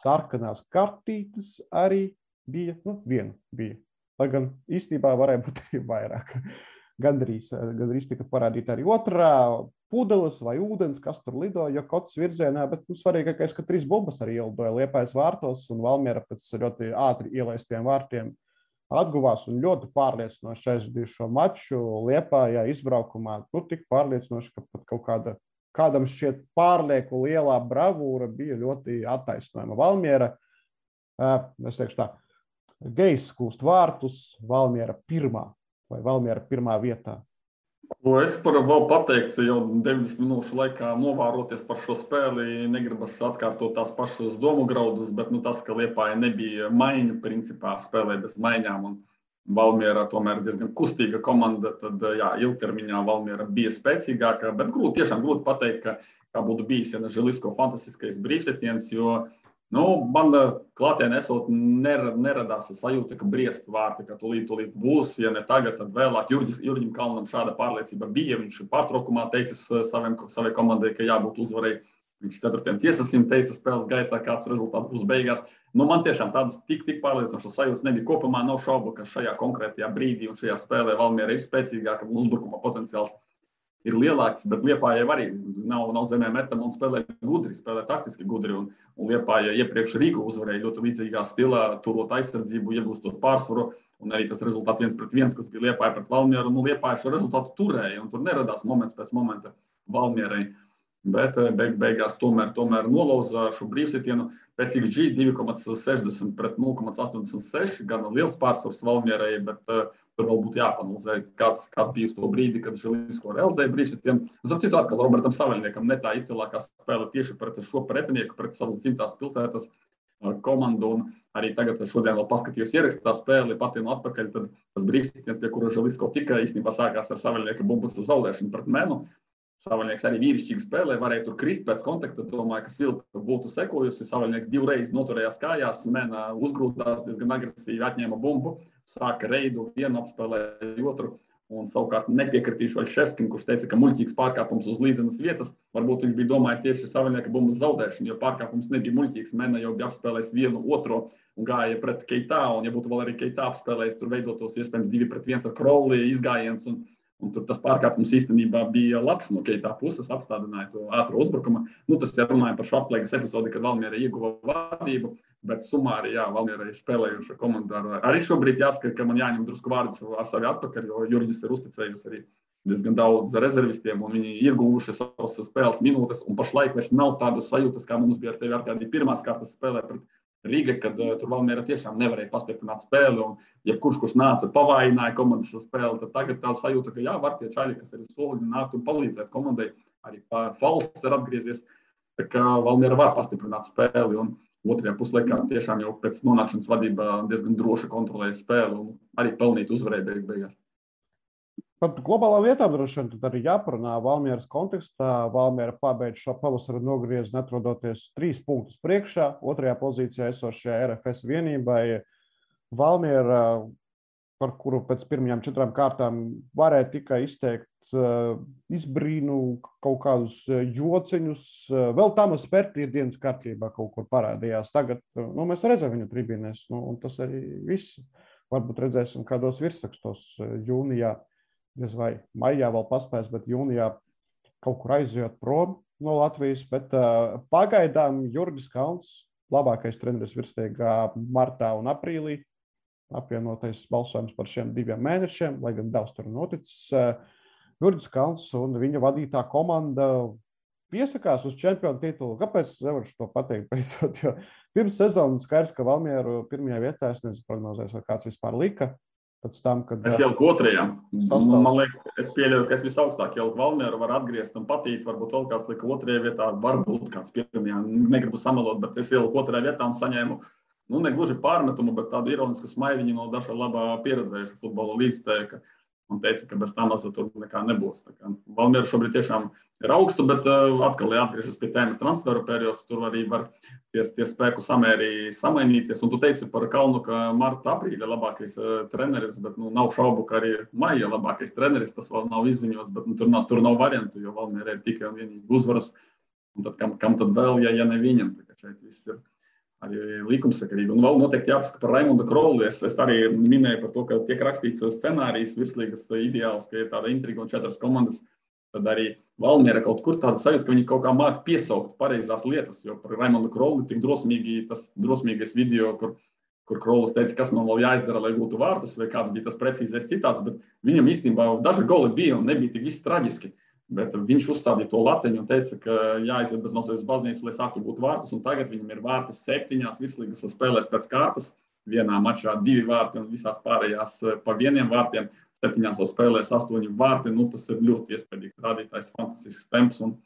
sarkanās kartītes arī bija, viena bija. Lai gan īstenībā varēja būt arī vairāk. Gandrīz tika parādīta arī otrā pudeles vai ūdens, kas tur lido, jo kots virzienā, bet svarīgākais, ka 3 bumbas arī ielidoja Liepājas vārtos, un Valmiera pēc ļoti ātri ielaistiem vārtiem atguvās un ļoti pārliecinoši aizvadīja šo maču Liepājā izbraukumā. Tik pārliecinoši, ka pat kādam šķiet pārlieku lielā bravūra bija ļoti attaisnojama. Valmiera, es teikšu tā, Gejs kūst vārtus, Valmiera pirmā. Vai Valmiera pirmā vietā? Ko es varu vēl pateikt, jau 90 minūšu laikā novēroties par šo spēli, negribas atkārtot tās pašas domu graudus, bet tas, ka Liepāja nebija maiņu, principā spēlē bez maiņām, un Valmiera tomēr diezgan kustīga komanda, tad jā, ilgtermiņā Valmiera bija spēcīgāka, bet tiešām grūti pateikt, kā būtu bijis, ja ne Želisko fantastiskais brīvsetiens, jo man klātienē esot neradās sajūta, ka briest vārti, ka tūlīt būs, ja ne tagad, tad vēlāk. Jurģim Kalnam šāda pārliecība bija, viņš pārtraukumā teicis savai komandai, ka jābūt uzvarēji. Viņš 4. tiesnesim teica spēles gaitā, kāds rezultāts būs beigās. Man tiešām tādas tik pārliecinošas sajūtas nebija. Kopumā nav šaubu, ka šajā konkrētajā brīdī un šajā spēlē Valmiera ir spēcīgāka un uzbrukuma potenciāls ir lielāks, bet Liepājai arī nav zemē metama un spēlē gudri, spēlē taktiski gudri. Un Liepāja iepriekš Rīgu uzvarēja ļoti līdzīgā stilā, turot aizsardzību, iegūstot pārsvaru. Un arī tas rezultāts 1-1, kas bija Liepāja pret Valmieru. Liepāja šo rezultātu turēja, un tur neradās moments pēc momenta Valmierai. Bet beigās tomēr nolauza šo brīvsitienu. Pēc XG 2,60 pret 0,86. Gan liels pārsvars Valmierai, bet tur vēl būtu jāpanalizē, kāds bija uz to brīdi, kad Želisko realizēja brīvsitienu. Zem citu atkal Robertam Saveļniekam ne tā izcilākā spēle tieši pret šo pretinieku, pret savas dzimtās pilsētas komandu. Un arī tagad šodien vēl paskatījos ierakstā spēli patienu atpakaļ, tad tas brīvsitiens, pie kura Želisko tika, īstenībā sākās ar Saveļnieka bumbas zaudēšanu pret Menu. Savaļnieks arī vīrišķīgi spēlē, varēja tur krist pēc kontakta. Domāju, ka Svilpa būtu sekojusi. Savaļnieks 2 reizes noturējās kājās, Mena uzgrūdās, diezgan agresīvi atņēma bumbu, sāka reidu, vienu apspēlēja otru. Un savukārt nepiekritīšu Vaļševskim, kurš teica, ka muļķīgs pārkāpums uz līdzenas vietas. Varbūt viņš bija domājis tieši Savaļnieka bumbas zaudēšanu, jo pārkāpums nebija muļķīgs. Mena jau bija apspēlējis vienu otro un gāja pret Keitā. Un ja būtu vēl arī Keitā apspēlējis, tur veidotos iespējams 2-1 ar Crowley izgājiens. Un tur tas pārkāpums īstenībā bija labs no Keitā puses, apstādināja to ātro uzbrukumu. Tas ir runājot par šo atslēgas epizodi, kad Valmiera ieguva vadību, bet sumāri, jā, Valmiera ir spēlējuša komanda. Arī šobrīd jāsaka, ka man jāņem drusku vārds ar savi atpakaļ, jo Jurģis ir uzticējusi arī diezgan daudz rezervistiem, un viņi ir guvuši savas spēles minūtes, un pašlaik vairs nav tādas sajūtas, kā mums bija ar tevi Arkādī pirmās kārtas spēlē pret Rīga, kad tur Valmiera tiešām nevarēja pastiprināt spēli, un jebkurš, kurš nāca, pavājināja komandas spēli, tad tagad tā sajūta, ka jā, var tie čaļi, kas ir soliņi nākt un palīdzēt komandai, arī Falsts ir atgriezies, tā kā Valmiera var pastiprināt spēli, un otrajā puslaikā tiešām jau pēc nonākšanas vadībā diezgan droši kontrolēja spēli, un arī pelnīt uzvarēja beigās. Pat globālā vietā droši vien tad arī jāparunā Valmieras kontekstā. Valmiera pabeidz šo pavasaru nogriezni, atrodoties 3 punktus priekšā, otrajā pozīcijā esošajā RFS vienībai. Valmiera, par kuru pēc pirmajām 4 kārtām varēja tikai izteikt izbrīnu, kaut kādus jociņus. Vēl Tamas Pērti dienas kārtībā kaut kur parādījās. Tagad mēs redzam viņu tribīnēs, un tas arī viss. Varbūt redzēsim kādos virsrakstos jūnijā. Vai maijā vēl paspēs, bet jūnijā kaut kur aizjot prom no Latvijas. Bet pagaidām Jurgis Kalns, labākais treneris virsliegā martā un aprīlī, apvienotais balsojums par šiem 2 mēnešiem, lai gan daudz tur noticis. Jurgis Kalns un viņa vadītā komanda piesakās uz čempionu titulu. Kāpēc nevaru to pateikt? Beidzot, jo pirms sezonas skaidrs, ka Valmieru pirmajā vietā, es nezinu prognozēs, vai kāds vispār lika. Tam, kad, es ieliku 2. Man liekas, es pieļauju, ka es visaugstāk ieliku Valmieru, var atgriezt un patīt, varbūt vēl kāds lika 2. vietā, varbūt kāds 1. Negribu samelot, bet es ieliku 2. vietā un saņēmu, ne gluži pārmetumu, bet tādu ironisku smaidiņu no daža labā pieredzējuša futbola līdzstēja, ka un teica, ka bez tā maza tur nekā nebūs. Valmiera šobrīd tiešām ir augstu, bet atkal atgriežas pie tēmas transferu periods, tur arī var tie spēku samēri samainīties. Un tu teici par Kalnu, ka marta, aprīļa labākais treneris, bet nav šaubu, ka arī maija labākais treneris, tas vēl nav izziņots, bet tur nav variantu, jo Valmiera ir tikai un vienīgi uzvaras. Un tad kam tad vēl, ja ne viņam? Šeit viss ir arī likumsakarīgi. Un vēl noteikti jāpasaka par Raimondu Krolu. Es arī minēju par to, ka tiek rakstīts scenārijs virslīgas ideāls, ka ir tāda intriga un 4 komandas. Tad arī Valmiera kaut kur tāda sajūta, ka viņi kaut kā māk piesaukt pareizās lietas, jo par Raimondu Krolu tik tas drosmīgais video, kur Krolis teica, kas man vēl jāizdara, lai gūtu vārtus, vai kāds bija tas precīzais citāts, bet viņam īstenībā daži goli bija un nebija tik viss traģiski. Bet viņš uzstādīja to lateņu un teica, ka jāiziet bez mazliet uz baznīcu, lai sāktu būt vārtus. Un tagad viņam ir vārti 7 virslīgas spēlēs pēc kārtas. Vienā mačā 2 vārti un visās pārējās pa 1 vārtiem. 7 spēlēs 8 vārti. Tas ir ļoti iespaidīgs rādītājs, fantastisks temps. Un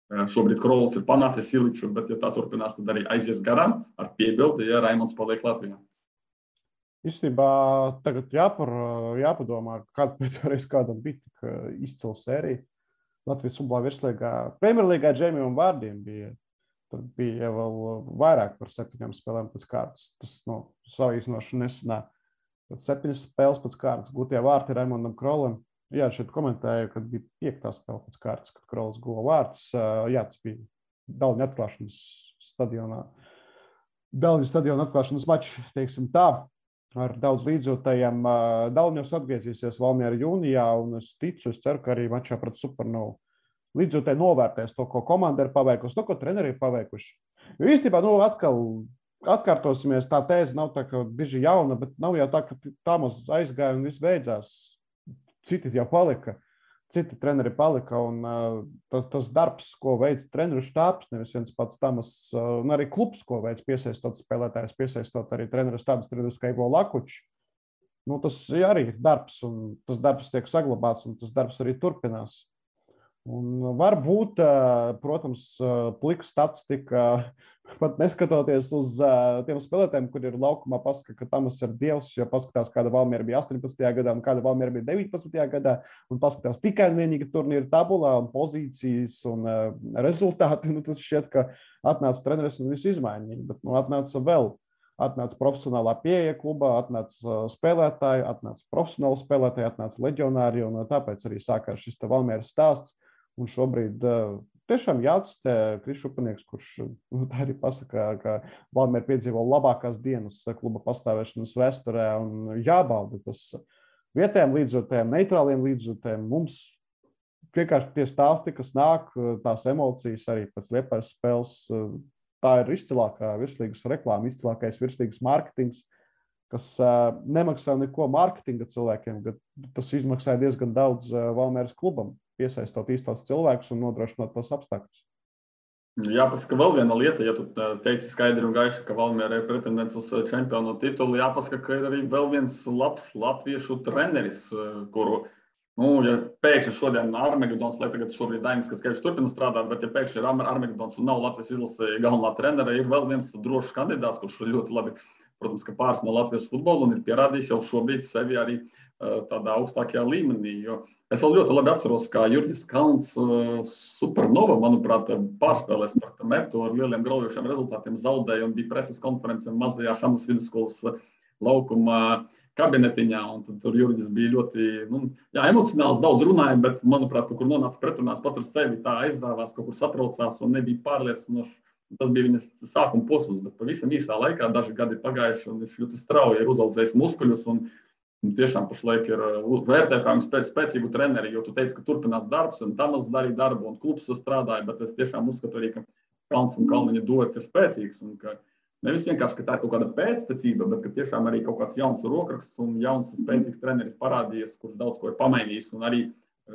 šobrīd Krolis ir panācis Iliču, bet ja tā turpinās, tad arī aizies garām ar piebildi, ja Raimonds paliek Latvijā. Īstenībā tagad jāpadomā, kāda pēdējais kādam bija tik izcila sērija. Latvijas futbola virslīgā, Premjerlīgā Džeimijam vārdiem bija. Tur bija vēl vairāk par 7 spēlēm pēc kārtas. Tas salīdzinoši nesenā. 7 spēles pēc kārtas gūtie vārti Raimondam Krolim. Jā, šeit komentēju, kad bija 5. spēle pēc kārtas, kad Krolis guva vārtus. Jā, tas bija Daļņu atklāšanas stadionā. Daļņu stadiona atklāšanas mačs, teiksim tā. Ar daudz līdzjūtējiem. Daļņos atgriezīsies Valmiera jūnijā, un es ceru, ka arī mačā pret Supernovu līdzjūtēji novērtēs to, ko komanda ir paveikusi, to, ko treneri ir paveikuši. Jo īstenībā, atkal atkārtosimies, tā tēze nav tā, ka diži jauna, bet nav jau tā, ka tā maz aizgāja un viss beidzās. Citi jau palika, citi treneri palika, un tas darbs, ko veic treneru štābs, nevis viens pats Tamas, un arī klubs, ko veic piesaistot spēlētājus, piesaistot arī trenerus tādus trenerus kā Ivo Lakuči. Tas arī ir darbs, un tas darbs tiek saglabāts, un tas darbs arī turpinās. Un varbūt, protams, plika statistika, pat neskatoties uz tiem spēlētājiem, kur ir laukumā, pasaka, ka Tamas ir dievs, jo paskatās, kāda Valmiera bija 18. gadā un kāda Valmiera bija 19. gadā, un paskatās tikai un vienīgi turnīra tabulā un pozīcijas un rezultāti. Tas šķiet, ka atnāca treneris un visu izmainīja, bet atnāca vēl. Atnāca profesionālā pieeja klubā, atnāca spēlētāji, atnāca profesionāli spēlētāji, atnāca leģionāri, un tāpēc arī sākās šis Valmieras stāsts. Un šobrīd tiešām jāatstē Kris Šupanieks, kurš arī pasaka, ka Valmiera piedzīvo labākās dienas kluba pastāvēšanas vēsturē, un jābauda tas vietējiem līdzjūtējiem, neitrāliem līdzjūtējiem. Mums vienkārši tie stāsti, kas nāk, tās emocijas arī pēc Liepājas spēles, tā ir izcilākā virslīgas reklāma, izcilākais virslīgas mārketings, kas nemaksā neko mārketinga cilvēkiem, bet tas izmaksāja diezgan daudz Valmieras klubam, piesaistot īstos cilvēkus un nodrošinot tos apstākļus. Jāpasaka vēl viena lieta, ja tu teici skaidri un gaiši, ka Valmiera ir pretendents uz čempionu titulu, jāpasaka, ka ir arī vēl viens labs latviešu treneris, kuru, ja pēkšņi šodien Armagedons, lai tagad šobrīd Dainis Kaskevičs turpina strādāt, bet ja pēkšņi ir Armagedons un nav Latvijas izlase galvenā trenere, ir vēl viens drošs kandidāts, kurš ļoti labi, protams, ka pārsna Latvijas futbolu un ir pierādījis jau šobrīd sevi arī tādā augstākajā līmenī, jo es vēl ļoti labi atceros, kā Jurģis Kalns Supernova, manuprāt, pārspēlēs par Metu ar lieliem graujošiem rezultātiem zaudēja un bija preses konference mazajā Hanzas vidusskolas laukuma kabinetiņā, un tad tur Jurģis bija ļoti emocionāls, daudz runāja, bet, manuprāt, kaut kur nonāca pretrunās pat ar sevi, tā aizdāvās, kaut kur satraucās un nebija pārliecinoši. Tas bija viņas sākuma posms, bet pavisam īsā laikā, daži gadi pagājuši, un viņš ļoti strauji ir uzaudzējis muskuļus, un tiešām pašlaik ir vērtē kā spēcīgu treneri, jo tu teici, ka turpinās darbs, un Tamas darīja darbu, un klubs strādāja, bet es tiešām uzskatu arī, ka Kalns un Kalniņa duets ir spēcīgs, un ka nevis vienkārši, ka tā ir kaut kāda pēctecība, bet ka tiešām arī kaut kāds jauns rokraksts un jauns spēcīgs treneris parādījies, kurš daudz ko ir pamainījis, un arī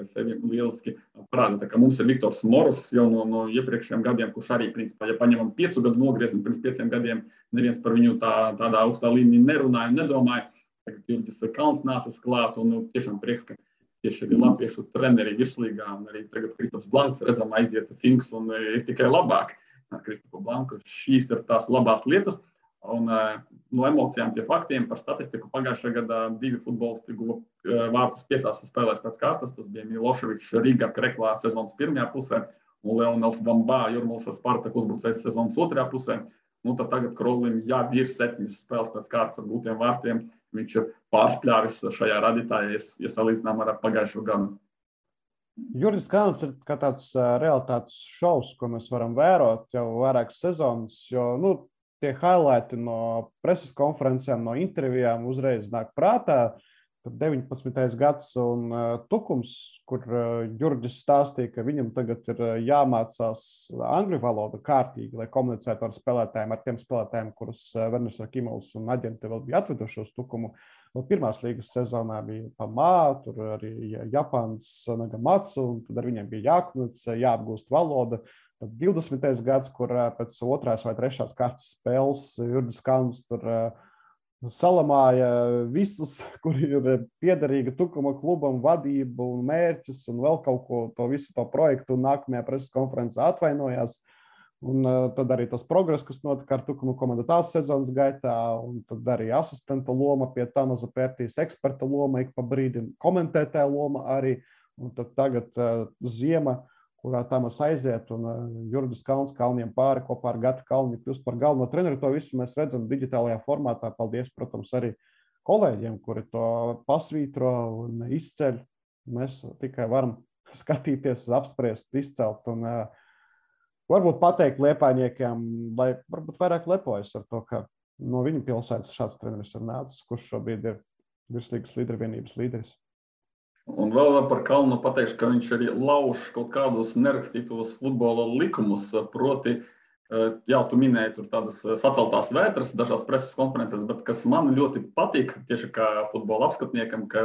sevi lieliski parāda. Tā kā mums ir Viktors Moros jau no iepriekšējiem gadiem, kurš arī, principā, ja paņemam 5 gadu nogriezni, pirms 5 gadiem neviens par viņu tādā augstā līmenī nerunāja un nedomāja. Tagad Jurģis Kalns nācis klāt, un tiešām prieks, ka tieši arī latviešu treneri virslīgā, un arī tagad Kristaps Blanks redzam aiziet Finks, un ir tikai labāk ar Kristapu Blanku. Šīs ir tās labās lietas. Un no emocijām pie faktiem par statistiku pagājušajā gadā 2 futbolisti guva vārtus 5 spēlēs pēc kārtas. Tas bija Miloševičs Riga Kreklā sezonas pirmajā pusē un Leonels Vambā Jurmals ar Spartaku uzbrucējs sezonas otrajā pusē. Tad tagad Krolim jau ir 7 spēles pēc kārtas ar gūtiem vārtiem. Viņš ir pārspļāvis šajā radītājā, ja salīdzinām ar pagājušo gadu. Jurģis Kalns ir kā tāds realitātes šovs, ko mēs varam vērot jau vairākas sezonas, jo tie highlighti no preses konferencēm, no intervijām uzreiz nāk prātā. Tad 19. gads un Tukums, kur Jurģis stāstīja, ka viņam tagad ir jāmācās angļu valoda kārtīgi, lai komunicētu ar spēlētājiem, ar tiem spēlētājiem, kurus Werners Rakimovs un aģenti vēl bija atveduši uz Tukumu. Pirmās līgas sezonā bija Pamā, tur arī Japāns Nagamatsu, un tad ar viņiem bija jākomunicē, jāapgūst valoda. Tad 20. gads, kur pēc 2. vai 3. kārtas spēles Jurģis Kalns tur salamāja visus, kuri ir piederīgi Tukuma klubam, vadību un mērķus un vēl kaut ko, to visu to projektu, un nākamajā preses konferencē atvainojās. Un tad arī tas progress, kas notika ar Tukuma komandu tās sezonas gaitā, un tad arī asistenta loma pie Tamaza Pērtīs, eksperta loma, ik pa brīdim komentētāja loma arī, un tad tagad ziema, kurā Tamas aiziet, un Jurģis Kalns Kalniem pāri kopā ar Gatu Kalni kļūst par galveno treneru. To visu mēs redzam digitālajā formātā. Paldies, protams, arī kolēģiem, kuri to pasvītro un izceļ. Mēs tikai varam skatīties, apspriest, izcelt un varbūt pateikt liepājniekiem, lai varbūt vairāk lepojas ar to, ka no viņa pilsētas šāds treneris ir nācis, kurš šobrīd ir virslīgas līdervienības līderis. Un vēl par Kalnu pateikšu, ka viņš arī lauž kaut kādus nerakstītos futbola likumus, proti, jā, tu minēji tur tādas saceltās vētras dažās preses konferences, bet kas man ļoti patīk, tieši kā futbola apskatniekam, ka,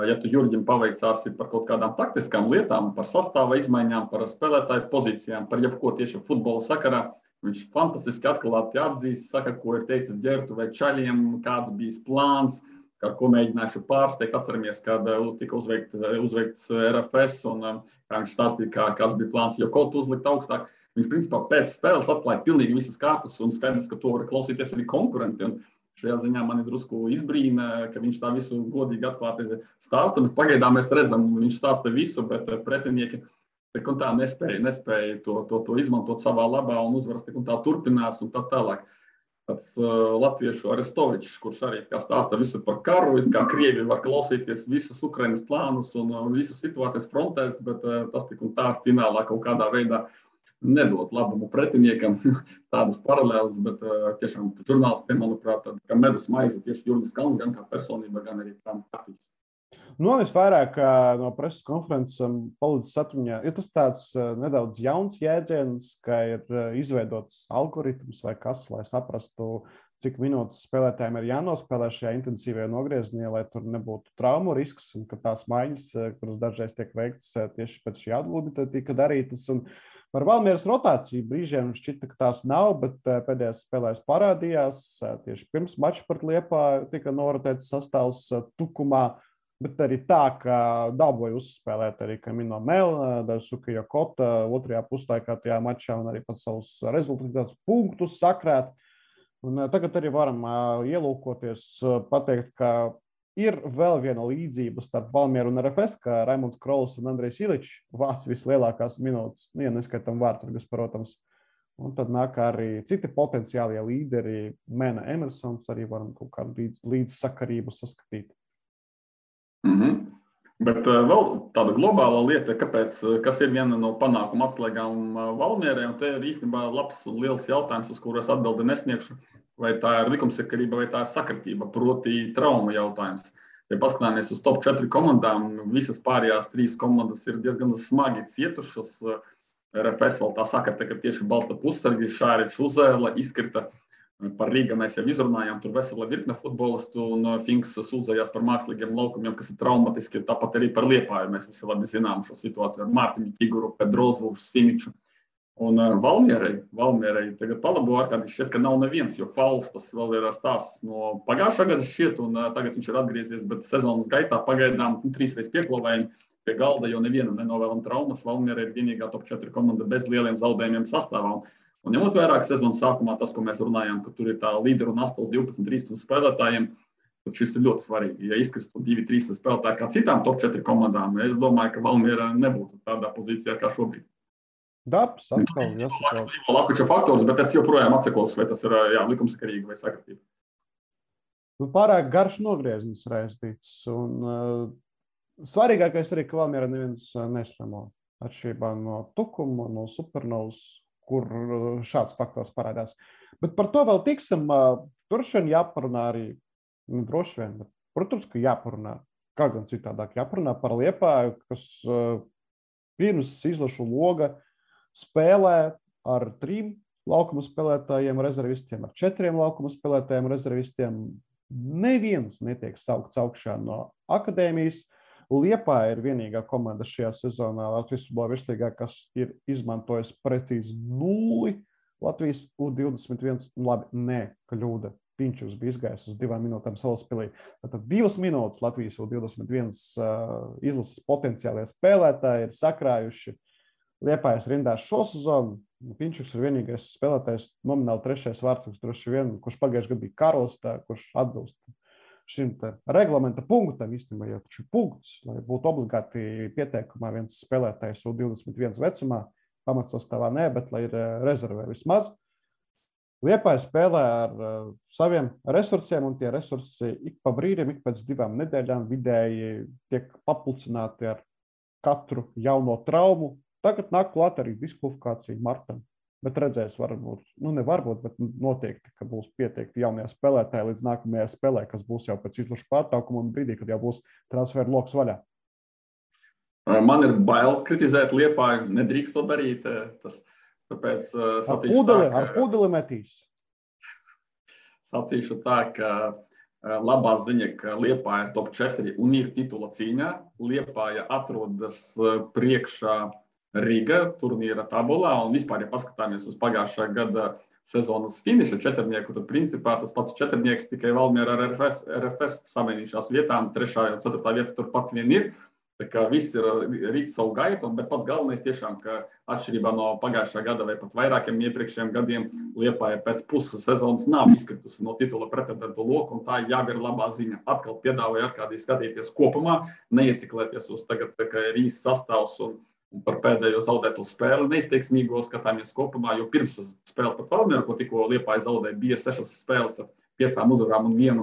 ja tu Jurģim paveicāsi par kaut kādām taktiskām lietām, par sastāva izmaiņām, par spēlētāju pozīcijām, par jebko tieši futbola sakarā, viņš fantastiski atklāti atzīst, saka, ko ir teicis Ģertu vai Čaļiem, kāds bijis plāns, ar ko mēģināšu pārsteigt. Atceramies, kad tika uzveikts RFS un kā viņš stāstīja, kāds bija plāns jau kaut uzlikt augstāk. Viņš principā pēc spēles atklāja pilnīgi visas kārtas un skaidrs, ka to var klausīties arī konkurenti. Un šajā ziņā mani drusku izbrīna, ka viņš tā visu godīgi atklāti stāsta. Pagaidām mēs redzam, viņš stāsta visu, bet pretinieki tik un tā nespēja to izmantot savā labā un uzvaras tik un tā turpinās un tā tālāk. Tāds latviešu Arestovičs, kurš arī stāsta visu par karu, kā Krievi var klausīties visus Ukrainas plānus un visas situācijas frontēs, bet tas tik un tā finālā kaut kādā veidā nedod labumu pretiniekam tādas paralēlas, bet tiešām žurnālistiem, manuprāt, kā medus maize tieši Jurģis Kalns, gan kā personība, gan arī kā taktiķis. Visvairāk no preses konferences palicis atmiņā, ir tas tāds nedaudz jauns jēdziens, ka ir izveidots algoritms vai kas, lai saprastu, cik minūtes spēlētājiem ir jānospēlē šajā intensīvajā nogriezienā, lai tur nebūtu traumu risks, un ka tās maiņas, kuras dažreiz tiek veiktas tieši pēc šī atgūda, tika darītas. Un par Valmieras rotāciju brīžiem šķita, ka tās nav, bet pēdējās spēlēs parādījās. Tieši pirms mača pret Liepāju tika norotēts sastāvs Tukumā, bet arī tā, ka dabūja uzspēlēt arī Kamino Mel, Daisuke Jokota otrajā puslaikā tajā mačā un arī pats savus rezultātus punktus sakrēt. Un tagad arī varam ielūkoties, pateikt, ka ir vēl viena līdzība starp Valmieru un RFS, ka Raimonds Krols un Andrejs Iličs vāc vislielākās minūtes, ja neskaitam vārdsargus, protams. Un tad nāk arī citi potenciālie līderi, Mēna Emersons, arī varam kaut kādu līdzsakarību saskatīt. Bet vēl tāda globāla lieta, kas ir viena no panākuma atslēgām Valmierai, un te ir īstenībā labs un liels jautājums, uz kuru es atbildi nesniegšu, vai tā ir likumsakarība, vai tā ir sakritība, proti trauma jautājums. Ja paskatāmies uz top 4 komandām, visas pārējās 3 komandas ir diezgan smagi cietušas. RFS vēl tā sakrita, ka tieši balsta pussargi, Šāričs Uzēla izkrita. Par Rīga mēs jau izrunājām, tur vesela virkne futbolistu un Finks sūdzējās par mākslīgiem laukumiem, kas ir traumatiski. Tāpat arī par Liepāju mēs visi labi zinām šo situāciju ar Mārtiņu Ķiguru, Pedrozu, Simiču. Un Valmierai tagad palabo ārkārtīgi šķiet, ka nav neviens, jo Fals tas vēl ir stāsts no pagājušā gada šķiet, un tagad viņš ir atgriezies, bet sezonas gaitā pagaidām 3 reiz pieklāvējumi pie galda, jo nevienam nenovēlam traumas. Valmierai ir vienīgā top 4 komanda bez lieliem zaudējumiem sastāvā. Un ņemot vērā, ka sezonas sākumā tas, ko mēs runājām, ka tur ir tā līderu nastas 12-13 spēlētājiem, tad šis ir ļoti svarīgi. Ja izkristu 2-3 spēlētāji kā citām top 4 komandām, es domāju, ka Valmiera nebūtu tādā pozīcijā kā šobrīd. Darbs atkal jāsaka. Lakuča faktors, bet es joprojām atsakos, vai tas ir likumsakarīgi vai sakritība. Pārāk garš nogrieziens raistīts. Un svarīgākais arī, ka Valmiera neviens neslimo. Atšķirībā no Tukuma, no Supernovas, kur šāds faktors parādās. Bet par to vēl tiksim. Droši vien jāparunā arī, droši vien, bet, protams, ka jāparunā. Kā gan citādāk jāparunā par Liepāju, kas pirms izlašu loga spēlē ar 3 laukuma spēlētājiem rezervistiem, ar 4 laukuma spēlētājiem rezervistiem. Neviens netiek saukts augšā no akadēmijas. Liepāja ir vienīgā komanda šajā sezonā Latvijas futbola virslīgā, kas ir izmantojis precīzi 0. Latvijas U21, labi, kļūda. Pinčus bija izgājis uz 2 minūtēm Salaspilī. Tātad 2 minūtes Latvijas U21 izlases potenciālie spēlētāji ir sakrājuši Liepājas rindās šo sezonu. Pinčuks ir vienīgais spēlētājs, nomināli 3. vārdsargs, droši vien, kurš pagājušajā gadā bija karos, kurš atbilst šim reglamenta punktam, īstenībā jau taču punkts, lai būtu obligāti pieteikumā viens spēlētājs U21 vecumā, pamatsastāvā bet lai ir rezervē vismaz. Liepāja spēlē ar saviem resursiem, un tie resursi ik pa brīdim, ik pēc 2 nedēļām vidēji tiek papulcināti ar katru jauno traumu. Tagad nāk klāt arī diskvalifikācija Martam. Bet redzēs, varbūt, bet noteikti, ka būs pieteikti jaunie spēlētāji līdz nākamajai spēlē, kas būs jau pēc izlašu pārtraukuma un brīdī, kad jau būs transferu loks vaļā. Man ir bail kritizēt Liepāju, nedrīkst to darīt. Tāpēc ar pūdeli metīs. Sacīšu tā, ka labā ziņa, ka Liepāja ir top 4 un ir titula cīņā. Liepāja atrodas priekšā Riga turnīra tabulā, un vispār, ja paskatāmies uz pagājušā gada sezonas finiša 4-nieku, tad principā tas pats 4-nieks tikai Valmiera ar RFS samainījušās vietām, 3. un 4. vieta turpat vien ir. Tā kā viss ir rīt savu gaitu, bet pats galvenais tiešām, ka atšķirībā no pagājušā gada vai pat vairākiem iepriekšējiem gadiem Liepāja pēc puses sezonas nav izkritusi no titula pretendentu loka, un tā jau ir labā ziņa. Atkal piedāvāju Arkādiju skatīties kopumā, neieciklēties uz tagad, ka ir īsts sastāvs un par pēdējo zaudēto spēli neizteiksmīgo skatāmies kopumā, jo pirms spēles pat Valmieru, ko tikko Liepāja zaudēja, bija 6 spēles ar 5 uzvarām un 1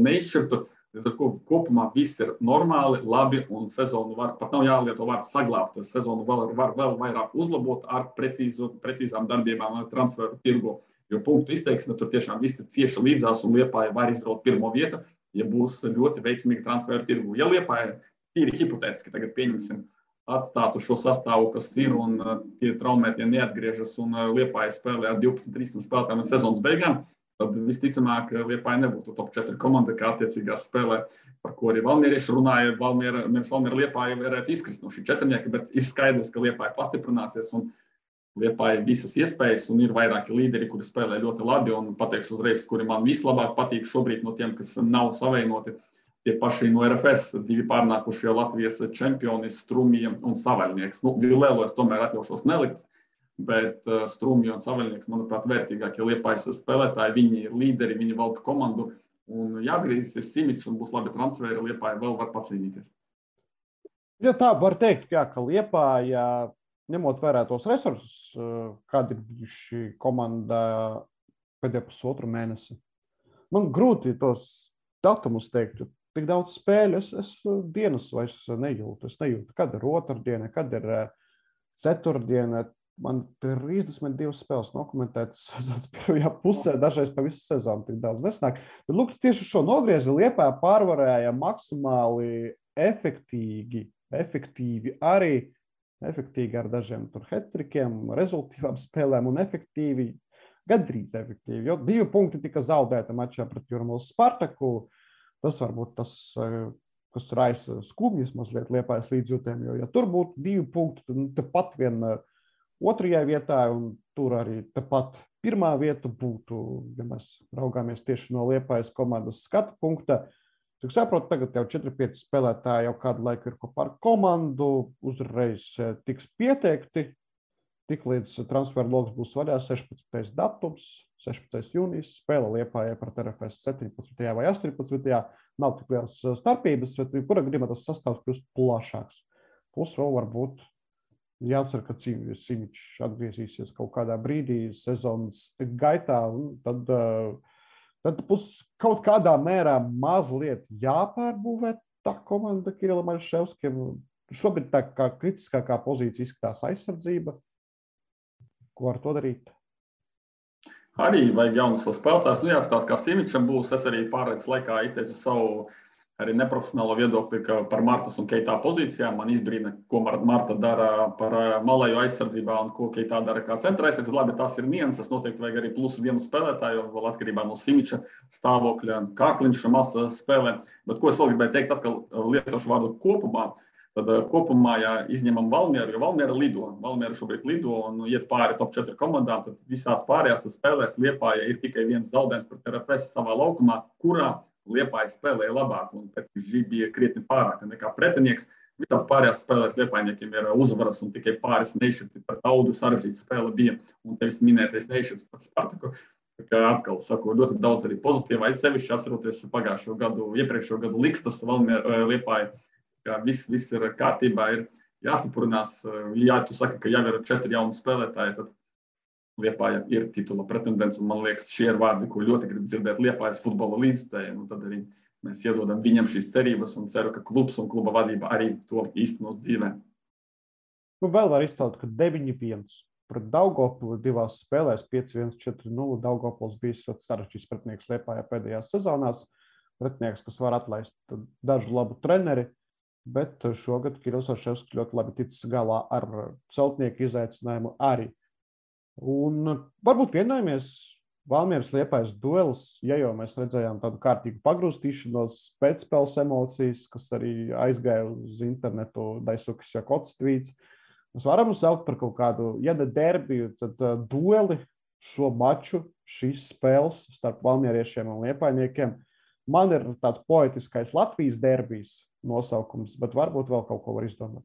neizšķirtu. Līdz ar kopumā viss ir normāli, labi, un sezonu pat nav jālieto vārds saglābt. Sezonu var vēl vairāk uzlabot ar precīzām darbībām transferu tirgu, jo punktu izteiksme tur tiešām viss ir cieši līdzās, un Liepāja var izraut 1. vietu, ja būs ļoti veiksmīgi transferu tirgu. Ja Liepāja tīri hipotētiski tagad pieņemsim, atstātu šo sastāvu, kas ir, un tie traumētie neatgriežas, un Liepāja spēlē ar 12-13 spēlētājiem līdz sezonas beigām, tad visticamāk Liepāja nebūtu top 4 komanda, kā attiecīgā spēlē, par ko arī valmierieši runāja. Valmiera Liepāja varētu izkrist no šī 4-nieka, bet ir skaidrs, ka Liepāja pastiprināsies, un Liepāja visas iespējas, un ir vairāki līderi, kuri spēlē ļoti labi, un pateikšu uzreiz, kuri man vislabāk patīk šobrīd no tiem, kas nav savienoti. Tie paši no RFS, 2 pārnākušie Latvijas čempioni, Strumija un Savaļnieks. Vilēlo es tomēr atļaušos nelikt, bet Strumija un Savaļnieks, manuprāt, vērtīgākie Liepājas spēlētāji. Viņi ir līderi, viņi valda komandu, un jāatgriezīsies Simičs un būs labi transferi, Liepāja vēl var pacīnīties. Ja tā var teikt, jā, ka Liepāja, ņemot vērā tos resursus, kādi ir bijuši komandā pēdējā pusotru mēnesi, man grūti tos datumus teikt. Tik daudz spēļu, es dienas vairs nejūtu. Es nejūtu, kad ir otrdiena, kad ir ceturtdiena. Man ir 32 spēles dokumentētas pirmajā pusē, dažreiz pa visu sezonu tik daudz nesnāk. Bet lūk, tieši šo nogriezi Liepāja pārvarēja maksimāli efektīvi arī, efektīgi ar dažiem tur hetrikiem, rezultīvām spēlēm un efektīvi, gandrīz efektīvi, jo 2 punkti tika zaudēti mačā pret Jūrmalas Spartaku. Tas varbūt tas, kas raisa skumjas mazliet Liepājas līdzjūtēm, jo ja tur būtu 2 punkti, tad tepat vien 2. vietā, un tur arī tepat 1. vieta būtu, ja mēs raugāmies tieši no Liepājas komandas skatu punkta. Cik saprotu, tagad jau 4-5 spēlētāji jau kādu laiku ir kopā ar komandu, uzreiz tiks pieteikti. tiklīdz transferu loks būs vaļā 16. datums, 16. jūnijas, spēle Liepājai pret RFS 17. vai 18. Nav tik liels starpības, bet kura gadījumā tas sastāvs kļūst plašāks. Plus vēl varbūt jācer, ka Simičs atgriezīsies kaut kādā brīdī sezonas gaitā, un tad kaut kādā mērā mazliet jāpārbūvē tā komanda Kirilam Aļševskim. Šobrīd tā kā kritiskākā pozīcija izskatās aizsardzība. Ko ar to darīt? Arī vajag jaunus spēlētājus. Jāstāsta, kā Simičam būs. Es arī pārējais laikā izteicu savu arī neprofesionālo viedokli par Martas un Keitā pozīcijām. Man izbrīna, ko Marta dara par malēju aizsardzībā un ko Keitā dara kā centra aizsardzības. Labi, tas ir nianses. Noteikti vajag arī plusu vienu spēlētāju, vēl atkarībā no Simiča stāvokļa. Kārkliņš masa spēlē. Bet ko es vēl gribēju teikt, atkal lietošu vārdu kopumā. Tad kopumā, ja izņemam Valmieru, jo Valmiera lido. Valmiera šobrīd lido un iet pāri top 4 komandām, tad visās pārējās spēlēs Liepāja ir tikai viens zaudējums pret RFS savā laukumā, kurā Liepāja spēlēja labāk un pēc Žī bija krietni pārāk nekā pretinieks. Visās pārējās spēlēs Liepājniekiem ir uzvaras un tikai pāris nešķirti pret Audu sarežģīta spēle bija. Un tevis minētais nešķirts pret Spartaku. Atkal saku, ļoti daudz arī pozitīva, sevišķi atceroties iepriekšējo gadu Likstas Liepāja. Viss ir kārtībā, ir jāsapurinās. Ja tu saki, ka jau ir 4 jauni spēlētāji, tad Liepāja ir titula pretendents. Un man liekas, šie ir vārdi, ko ļoti grib dzirdēt Liepājas futbola līdzstājiem. Tad arī mēs iedodam viņam šīs cerības un ceru, ka klubs un kluba vadība arī to īstenos dzīvē. Vēl var izcelt, ka 9-1 pret Daugavpili 2 spēlēs 5-1, 4-0. Daugavpils bijis ļoti sarežģīts pretinieks Liepājā pēdējās sezonās. Pretinieks, kas var atlaist dažu labu treneri. Bet šogad Kirillis Aļševskis ļoti labi ticis galā ar celtnieku izaicinājumu arī. Un varbūt vienojamies Valmieras Liepājas duelis, ja jau mēs redzējām tādu kārtīgu pagrūstīšanos, pēcspēles emocijas, kas arī aizgāja uz internetu, Daisukas Jakots tvīts. Mēs varam saukt par kaut kādu, ja ne derbiju, tad dueli šo maču, šīs spēles starp valmieriešiem un liepājniekiem. Man ir tāds poetiskais Latvijas derbijs nosaukums, bet varbūt vēl kaut ko var izdomāt.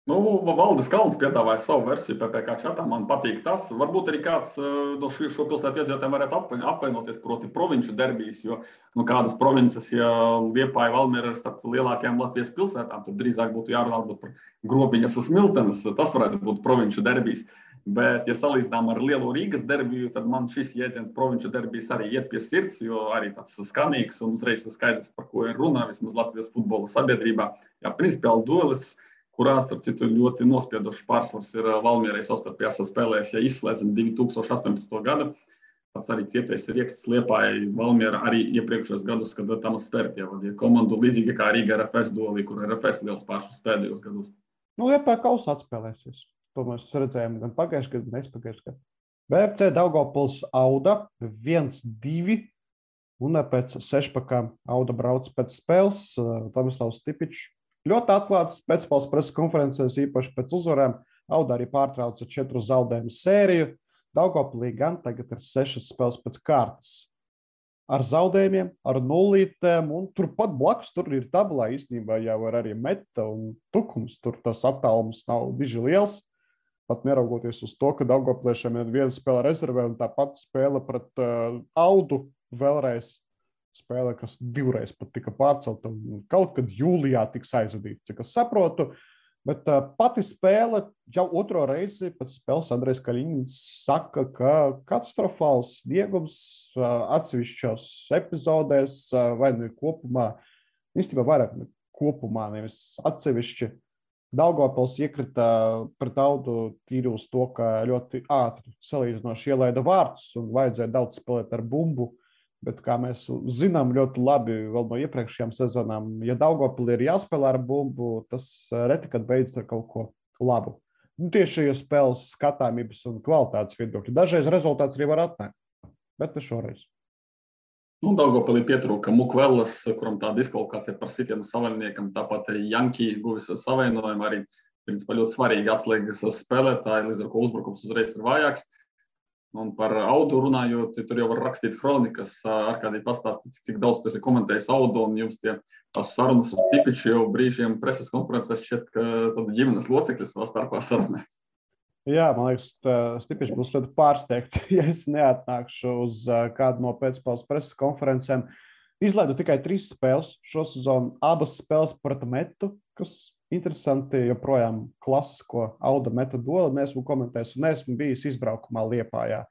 Valdis Kalns piedāvāja savu versiju PPK čatā. Man patīk tas. Varbūt arī kāds no šo pilsētu iedzīvotājiem varētu apvainoties, proti provinču derbijas, jo kādas provinces, ja Liepāja Valmiera ir starp lielākajām Latvijas pilsētām, tad drīzāk būtu jārunā par Grobiņas un Smiltenes. Tas varētu būt provinču derbijas. Bet, ja salīdzinām ar lielo Rīgas derbiju, tad man šis jēdziens provinču derbijas arī iet pie sirds, jo arī tāds skanīgs un uzreiz skaidrs, par ko ir runā vismaz Latvijas futbola sabiedrībā. Jā, principiāls duelis, kurās ar citu ļoti nospiedošs pārsvars ir Valmierai savstarpējās spēlēs, ja izslēdzam 2018. gadu. Pats arī cietais Rieksts Liepājai Valmiera arī iepriekšējos gadus, kad tam spērtie vadīja komandu līdzīgi kā Rīga RFS duelī, kur RFS liels pārsvars pēdējos gados. Liepāja kausā atspēlēsies. To mēs redzējām gan pagājušajā gadā, gan aizpagājušajā gadā. BFC Daugavpils Auda 1-2 un pēc sešpakām Auda brauc pēc spēles. Tomislavs Stipičs ļoti atklāts pēcspēles preses konferencēs, īpaši pēc uzvarēm. Auda arī pārtrauca 4 zaudējumu sēriju. Daugavpilī gan tagad ir 6 spēles pēc kārtas. Ar zaudējumiem, ar nulītēm, un turpat blakus tur ir tabulā īstenībā jau ir arī Meta un Tukums. Tur tas attālums nav diži liels. Pat neraugoties uz to, ka Daugavpiliešiem ir viena spēle rezervē un tāpat spēle pret Audu vēlreiz. Spēle, kas 2 reizes pat tika pārcelta un kaut kad jūlijā tiks aizvadīta, cik es saprotu. Bet pati spēle jau 2. reizi pēc spēles Andrejs Kaļiņins saka, ka katastrofāls sniegums atsevišķos epizodēs vai nu kopumā, īstenībā vairāk kopumā, nevis atsevišķi. Daugavpils iekrita pret Audu tīri uz to, ka ļoti ātri salīdzinoši ielaida vārtus un vajadzēja daudz spēlēt ar bumbu. Bet, kā mēs zinām ļoti labi vēl no iepriekšējām sezonām, ja Daugavpilī ir jāspēlē ar bumbu, tas reti, kad beidzas ar kaut ko labu. Tieši šajos spēles skatāmības un kvalitātes viedokļi. Dažreiz rezultāts arī var atnākt, bet ne šoreiz. Daugavpilī pietrūka Mukvelas, kuram tā diskvalifikācija par sitienu savaininiekam, tāpat arī Janki guvis savainojumu, arī principā ļoti svarīgi atslēgas spēlētāji, līdz ar ko uzbrukums uzreiz ir vājāks. Un par Audu runājot, tur jau var rakstīt kronikas, Arkādī pastāstīt, cik daudz tu esi komentējis Audu, un jums tās sarunas uz Stipiču jau brīžiem preses konferencēs šķiet, ka tad ģimenes locekļi savā starpā sarunājas. Jā, man liekas, Stipiņš būs ļoti pārsteigts, ja es neatnākšu uz kādu no pēcspēles preses konferencēm. Izlaidu tikai 3 spēles šo sezonu, abas spēles pret Metu, kas interesanti, joprojām klasisko Auda Meta dueli neesmu komentējis un neesmu bijis izbraukumā Liepājā.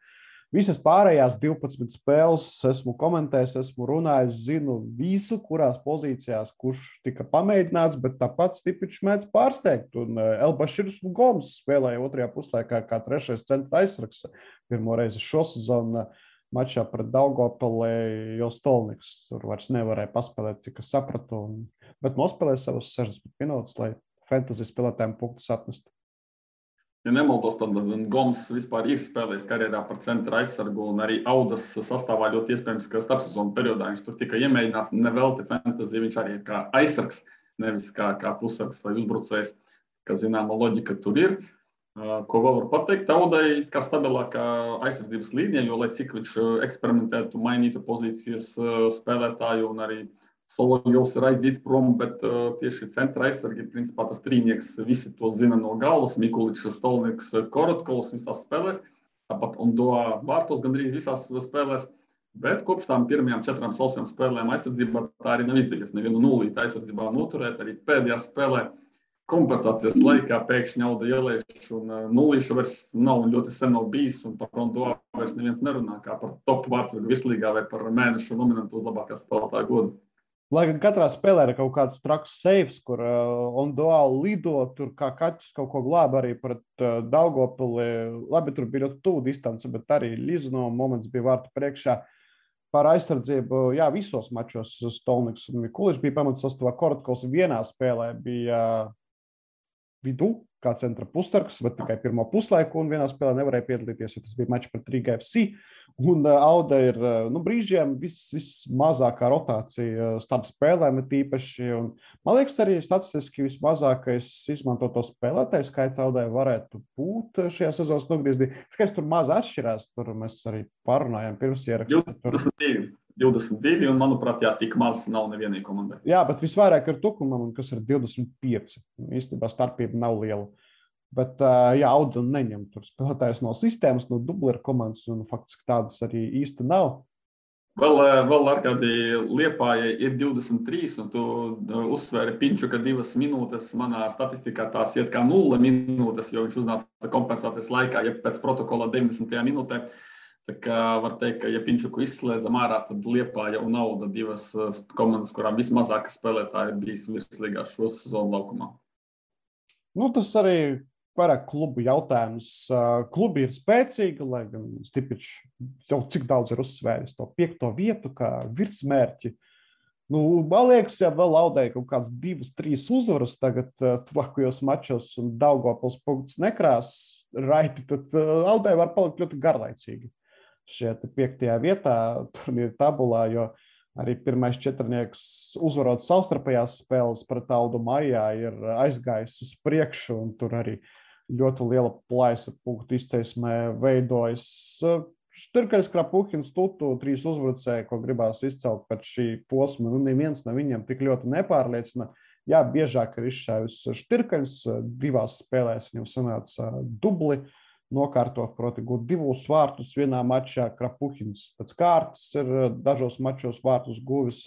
Visas pārējās 12 spēles esmu komentējis, esmu runājis, zinu visu, kurās pozīcijās, kurš tika pamēģināts, bet tāpat Stipiņš mēdz pārsteigt. Un Elbaširs Goms spēlēja otrajā puslaikā kā 3. centra aizsargs pirmo reizi šo sezonu mačā pret Daugavpili, jo Stolniks tur vairs nevarēja paspēlēt, cik es sapratu, bet nospēlēja savas 60 minūtes, lai fantasy spēlētājiem punktus atnestu. Ja nemaldos, tad Goms vispār ir spēlējis karjerā par centra aizsargu un arī Audas sastāvā ļoti iespējams, ka starpsezonu periodā viņš tur tika iemēģināts, nevelti fantasy, viņš arī ir kā aizsargs, nevis kā pussargs vai uzbrucējs, ka zināma loģika tur ir. Ko vēl var pateikt, Audai kā stabilākā aizsardzības līnija, jo lai cik viņš eksperimentētu, mainītu pozīcijas spēlētāju un arī Solovjovs ir aizdīts prom, bet tieši centra aizsargi, principā tas trīnieks, visi to zina no galvas, Mikuličs, Stolniks, Korotkovs visās spēlēs, tāpat Ondoa vārtos gandrīz visās spēlēs, bet kopš tām pirmajām 4 sausajām spēlēm aizsardzībā tā arī nav izdevies. Nevienu nulīti aizsardzībā noturēt, arī pēdējā spēlē kompensācijas laikā pēkšņi Auda ielēš un nulīšu vairs nav un ļoti sen nav bijis un par Ondoa vairs neviens nerunā kā par top vārtsargu virslīgā vai par mēnešu nominantu uz labākā spēlētāja godu. Lai gan katrā spēlē ir kaut kāds traks seifs, kur Ondoa lido, tur kā kaķis kaut ko glāba arī pret Daugavpili. Labi, tur bija ļoti tuvu distance, bet arī Lizno moments bija vārtu priekšā. Par aizsardzību, jā, visos mačos Stolniks un Mikuličs bija pamatsastāvā. Korotkovs vienā spēlē bija vidū, kā centra pussargs, bet tikai pirmo puslaiku un vienā spēlē nevarēja piedalīties, jo tas bija mačs pret Riga FC. Un Auda ir brīžiem vismazākā rotācija starp spēlēm tīpaši. Un, man liekas, arī statistiski vismazākais izmantoto spēlētāju skaits Audai varētu būt šajā sezonas nogriezdī. Skaidrs, tur maz atšķirās, tur mēs arī parunājām pirms ierakstu. 22, un, manuprāt, jā, tik maz nav nevienai komandai. Jā, bet visvairāk ir Tukumam, kas ir 25. Īstenībā starpība nav liela. Bet, jā, Auda neņem tur spēlētājus no sistēmas, no dubleru komandas, un faktiski tādas arī īsti nav. Vēl Arkādī Liepājai ir 23, un tu uzsvēri Pinču, ka 2 minūtes manā statistikā tās iet kā 0 minūtes, jo viņš uznāca kompensācijas laikā, ja pēc protokola 90. minūtē. Tā kā var teikt, ka ja Pinčuku izslēdzam ārā, tad Liepāja un Auda 2 komandas, kurām vismazākas spēlētāji ir bijis virslīgā šo sezonu laukumā. Nu, tas arī vairāk klubu jautājums. Klubi ir spēcīgi, lai gan Stipiņš jau cik daudz ir uzsvēris to 5. vietu kā virsmērķi. Nu, man liekas, ja vēl Audai kaut kāds 2-3 uzvaras tagad tuvākajos mačos un Daugavpils punktus nekrās raiti, tad Audai var palikt ļoti garlaicīgi. Šeit 5. vietā turnīra tabulā, jo arī pirmais 4. uzvarot savstarpējās spēles pret Audu maijā ir aizgājis uz priekšu, un tur arī ļoti liela plaisa punktu izcelsmē veidojas. Štirkaļs, Krapuhins, Tutu, 3 uzbrucēji, ko gribās izcelt pēc šī posma, nu neviens no viņiem tik ļoti nepārliecina. Jā, biežāk ir izšāvis Štirkaļs, 2 spēlēs viņam sanāca dubli nokārtot, proti gūt 2 vārtus vienā mačā. Krapuhins pēc kārtas ir dažos mačos vārtus guvis,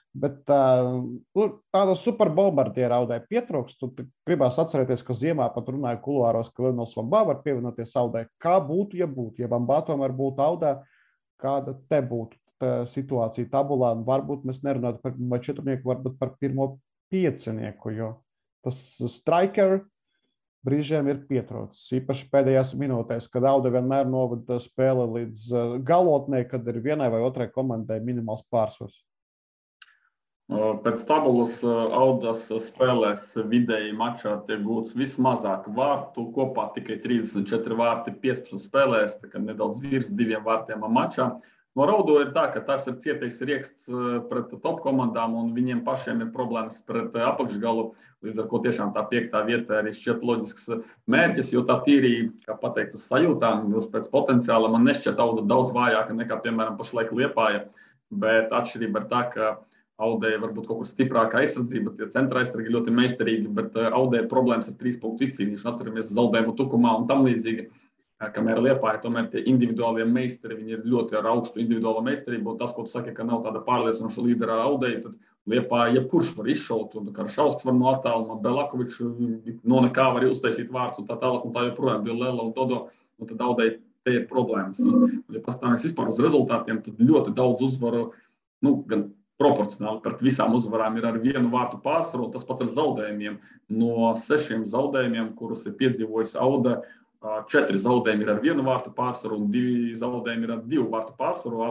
bet tāda superbombardiera Audai pietrūkst. Tu gribās atcerēties, ka ziemā pat runāja kuluāros, ka Leonels Vambā var pievienoties Audai. Kā būtu, ja Vambā tomēr būtu Audā, kāda te būtu situācija tabulā? Varbūt mēs nerunātu par 4, varbūt par 1. 5, jo tas striker brīžiem ir pietrūcis. Īpaši pēdējās minūtēs, kad Auda vienmēr novada spēli līdz galotnē, kad ir vienai vai otrai komandai minimāls pārsvars. Pēc tabulas Audas spēlēs vidēji mačā tiek gūts vismazāk vārtu, kopā tikai 34 vārti 15 spēlēs, tā kā nedaudz virs 2 vārtiem mačā. No Raudo ir tā, ka tas ir cietais rieksts pret top komandām, un viņiem pašiem ir problēmas pret apakšgalu, līdz ar ko tiešām tā 5. vieta arī šķiet loģisks mērķis, jo tā tīri, kā pateikt, uz sajūtām, pēc potenciāla man nešķiet Auda daudz vājāka nekā, piemēram, pašlaik Liepāja, bet atšķirība ir tā, ka Audē varbūt kaut kur stiprāka aizsardzība, tie centra aizsargi ļoti meistarīgi, bet Audē ir problēmas ar 3 punktu izcīnīšanu. Atceramies zaudējumu Tukumā un tam līdzīgi. Kamēr Liepāja, tomēr tie individuālie meistari, viņi ir ļoti ar augstu individuālo meistarību. Un tas, ko tu saki, ka nav tāda pārliecinoša līdera Audē, tad Liepāja jebkurš var izšaut. Un Karšausks var no attāluma, Belakovičs no nekā var uztaisīt vārds un tā tālāk. Un tā joprojām bija Lela un Dodo. Un tad Audē te ir problēmas. Un, ja pastāvēs vispār uz rezultātiem, tad ļoti daudz uzvaru, gan proporcionāli pret visām uzvarām ir ar 1 vārtu pārsvaru, un tas pats ar zaudējumiem. No 6 zaudējumiem, kurus ir piedzīvojis Auda, 4 zaudējumi ir ar 1 vārtu pārsvaru un 2 zaudējumi ir ar 2 vārtu pārsvaru.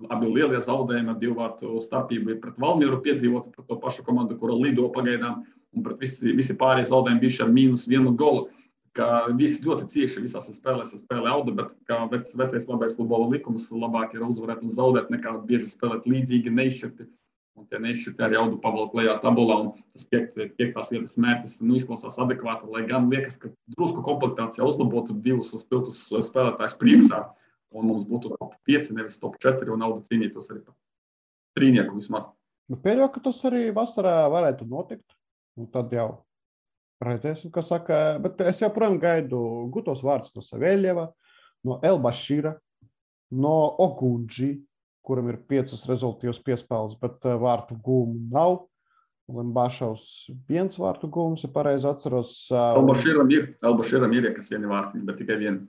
Abi lielie zaudējumi ar 2 vārtu starpību ir pret Valmieru piedzīvoti, pret to pašu komandu, kura lido pagaidām, un pret visi pārējie zaudējumi bijuši ar -1 golu. Ka visi ļoti cieši visās spēlēs spēlē Auda, bet kā vecais labais futbola likums, labāk ir uzvarēt un zaudēt, nekā bieži spēlēt līdzīgi, neizšķirti. Un tie neizšķirti arī Audu pavalk lejā tabulā, un tas 5. vietas mērķis izklausās adekvāti, lai gan liekas, ka drusku komplektācijā uzlabotu 2 spilgtus spēlētājus priekšā, un mums būtu top 5, nevis top 4, un Auda cīnītos arī par trīnieku vismaz. Pieļauju, ka tas arī vasarā varētu notikt, un tad jau redzēsim, kas saka, bet es joprojām gaidu gutos vārdus no Savēļeva, no Elbašīra, no Ogundži, kuram ir 5 rezultīvas piespēles, bet vārtu gūmu nav. Lembašovs 1 vārtu gūmus, ja pareizi atceros. Elbašīram ir, kas 1 vārtiņa, bet tikai 1.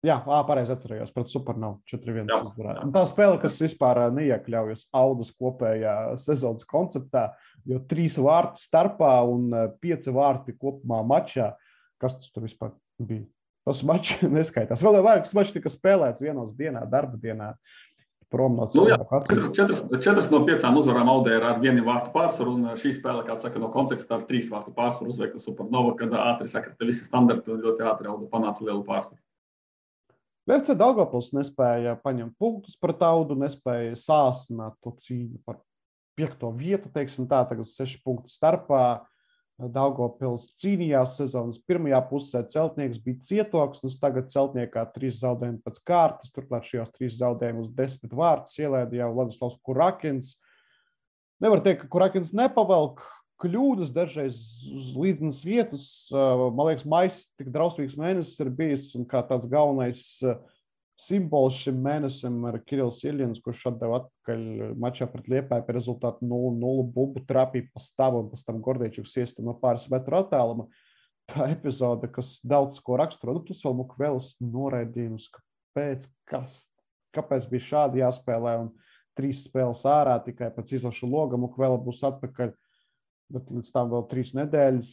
Jā, pareizi atcerējos, pret Supernovu 4-1 uzvarēja. Tā spēle, kas vispār neiekļaujas Audas kopējā sezonas konceptā, jo 3 vārtu starpā un 5 vārti kopumā mačā. Kas tas tur vispār bija? Tas mačs neskaitās. Vēl jau vairākas mačs tika spēlēts vienos dienā, darba dienā. Prom no cilvēku atceros. 4 no 5 uzvarām Audē ir ar 1 vārtu pārsvaru, un šī spēle, kā saka, no konteksta ar 3 vārtu pārsvaru uzveikta Supernova, kad ātri sakrita visi standarti un ļoti ātri Auda panāca lielu pārsvaru. FC Daugavpils nespēja paņemt punktus pret Audu, nespēja sāsināt to cīņu par 5. vietu, teiksim tā, tagad 6 punktu starpā. Daugavpils cīnījās sezonas pirmajā pusē, Celtnieks bija cietoksnis, tagad Celtniekā 3 zaudējumi pēc kārtas, turklāt šajos 3 zaudējumus 10 vārtus ielēda jau Vladislavs Kurakins. Nevar teikt, ka Kurakins nepavelk kļūdas dažreiz uz līdzenas vietas. Man liekas, maijs tik drausmīgs mēnesis ir bijis, un kā tāds galvenais simbols šim mēnesim ir Kirills Iļins, kurš atdeva atpakaļ mačā pret Liepāju par rezultātu 0-0 bumbu trapīja pa stabu, un pēc tam Gordeičuks iesta no pāris metru attāluma. Tā epizode, kas daudz ko raksturo, tas vēl Mukvelas noraidījums, kāpēc bija šādi jāspēlē, un 3 spēles ārā tikai pēc izlaša loga Mukvela būs atpakaļ. Bet līdz tam vēl 3 nedēļas.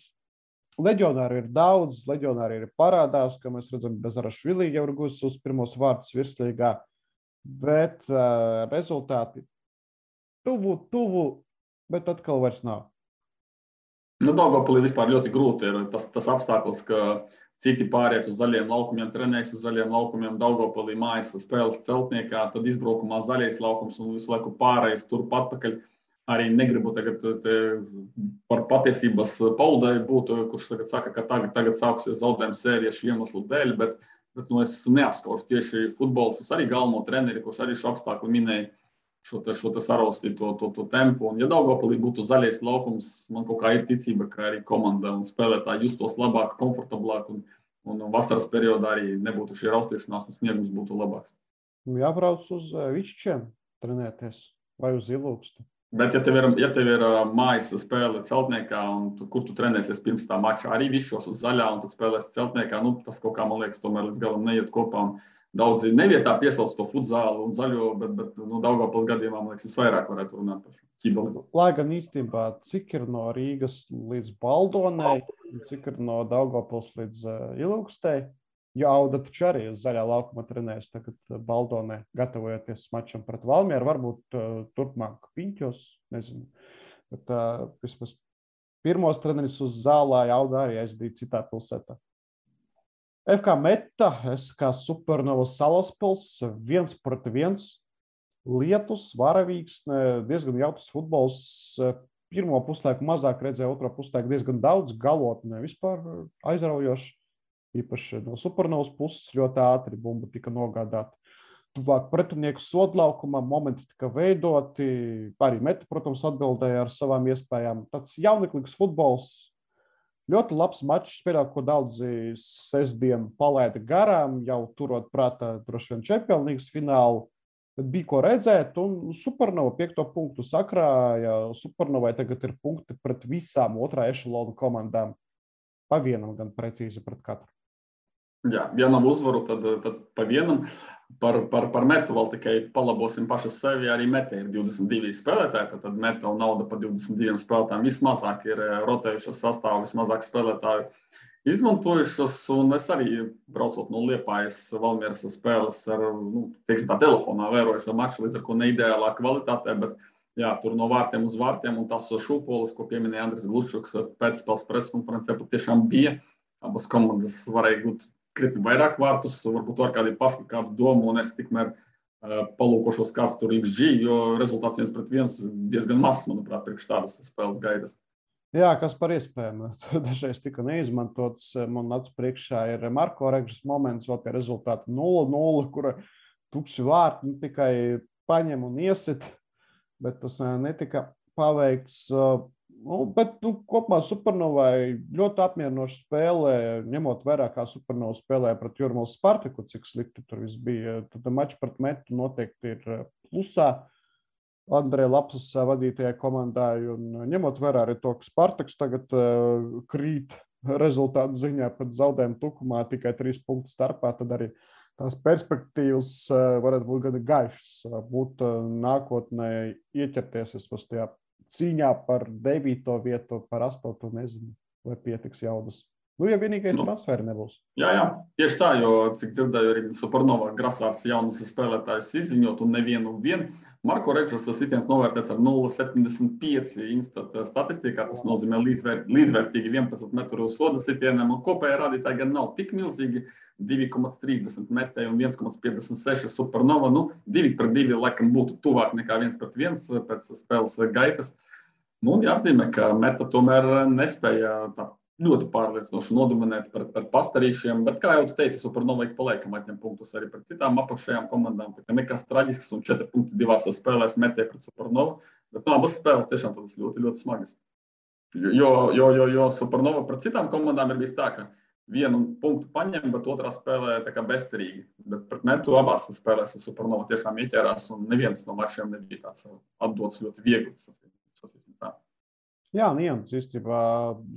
Leģionāri ir daudz, leģionāri ir parādās, ka mēs redzam, Bezarašvili jau ir guvis uz pirmos vārtus virslīgā, bet rezultāti tuvu, bet atkal vairs nav. Daugavpilī vispār ļoti grūti ir tas apstākļus, ka citi pāriet uz zaļiem laukumiem, trenējas uz zaļiem laukumiem, Daugavpilī mājas spēles Celtniekā, tad izbraukumā zaļais laukums un visu laiku pārējais turp atpakaļ. Arī negribu tagad par patiesības paudai būt, kurš tagad saka, ka tagad sāksies zaudējuma sērija šī iemesla dēļ, bet es neapskaužu tieši futbols, es arī galveno treneri, kurš arī šo apstākļu minēja šo saraustīto to tempu. Un ja Daugavpilī būtu zaļais laukums, man kaut kā ir ticība, ka arī komanda un spēlētāji justos labāk, komfortablāk un vasaras periodā arī nebūtu šī raustīšanās un sniegums būtu labāks. Jābrauc uz Višķiem trenēties vai uz Ilūkstu. Bet, ja tev ir mājas spēle Celtniekā, kur tu trenēsies pirms tā mača, arī višķos uz zaļā un tad spēlēsi Celtniekā, tas kaut kā, man liekas, tomēr līdz galam neiet kopā. Daudzi nevietā pieslauc to futzālu un zaļo, bet Daugavpils gadījumā, man liekas, visvairāk varētu runāt par šo ķibali. Lai gan īstenībā, cik ir no Rīgas līdz Baldonai, cik ir no Daugavpils līdz Ilūkstei, jo Auda taču arī uz zaļā laukuma trenējas tagad Baldonē, gatavojoties mačam pret Valmieru, varbūt turpmāk Piņķos, nezinu. Bet vismaz pirmos treneris uz zālē Auda arī aizdīja citā pilsētā. FK Meta, SK Supernova Salaspils, 1-1, lietus, varavīgs, diezgan jautrs futbols. Pirmo puslaiku mazāk redzēja, otro puslaiku diezgan daudz, galotnē vispār aizraujoši. Īpaši no Supernovas puses ļoti ātri bumba tika nogādāta. tuvāk pretinieku sodlaukumam, momenti tika veidoti, arī Meta, protams, atbildēja ar savām iespējām. Tāds jauneklīgs futbols, ļoti labs mačs, spēlē, ko daudzi sestdien palaida garām, jau turot prātā droši vien Champions League finālu. Bet bija ko redzēt, un Supernova 5. punktu sakrāja. Supernovai tagad ir punkti pret visām otrā ešalona komandām. Pa vienam gan precīzi pret katru. Jā, ja nav uzvaru, tad pa vienam. Par Metu vēl tikai palabosim paši sevi. Arī Meta ir 22 spēlētāji, tad Meta un nauda par 22 spēlētājiem. Vismazāk ir rotējušas sastāvu, vismazāk spēlētāju izmantojušas, un es arī braucot no Liepājas Valmieras spēles ar, teiksim tā, telefonā vēroju šo maču, līdz ar ko neideālā kvalitātē, bet jā, tur no vārtiem uz vārtiem, un tas šūpolis, ko pieminēja Andris Gluščuks pēcspēles preskonferencē, patiešām bija. Abas komandas varēja gūt krietni vairāk vārtus, varbūt var kādu domu, un es tikmēr palūkošos, kāds tur XG, jo rezultāts 1-1 diezgan mazs, manuprāt, priekš tādas spēles gaidas. Jā, kas par iespējām. Dažreiz tika neizmantots. Man acu priekšā ir Marko Regžas moments, vēl pie rezultāta 0-0, kura tukši vārti tikai paņem un iesit, bet tas netika paveikts. Bet kopumā Supernovai ļoti apmierinoša spēle, ņemot vērā, kā Supernova spēlēja pret Jūrmālas Spartaku, cik slikti tur viss bija. Tad mačs pret Metu noteikti ir plusā Andreja Lapsas vadītajai komandai, un ņemot vērā arī to, ka Spartaks tagad krīt rezultātu ziņā pat zaudējumu tukumā tikai 3 punktu starpā, tad arī tās perspektīvas varētu būt gan gaišas, būt nākotnē ieķerties tajā cīņā par 9. vietu, par 8. nezinu, vai pietiks jaudas. Ja vienīgais transferi nebūs. Jā, tieši tā, jo, cik dzirdēju, arī Supernova grasās jaunus spēlētājus izziņot un nevienu vien. Marko Regžas sitiens novērtēts ar 0,75 Instat statistikā, tas nozīmē līdzvērtīgi 11 metru soda sitienam, un kopējā rādītāji gan nav tik milzīgi, 2,30 metēji un 1,56 Supernova, 2-2 laikam būtu tuvāk nekā 1-1 pēc spēles gaitas. Jāatzīmē, ka Meta tomēr nespēja tā ļoti pārliecinoši nodominēt par pastarīšiem, bet, kā jau tu teici, Supernova ik pa laikam atņem punktus arī pret citām apakšējām komandām, tā kā nekas traģisks, un 4 punkti divās spēlēs Metē pret Supernovu, bet abas spēles tiešām tādas ļoti, ļoti smagas. Jo Supernova pret citām komandām ir bijis tā, ka vienu punktu paņem, bet otrā spēlē tā kā bezcerīgi, bet pret Metu abās spēlēs Supernova tiešām ieķērās, un neviens no mačiem nebija tāds atdots ļoti viegli. Jā, nians īstenībā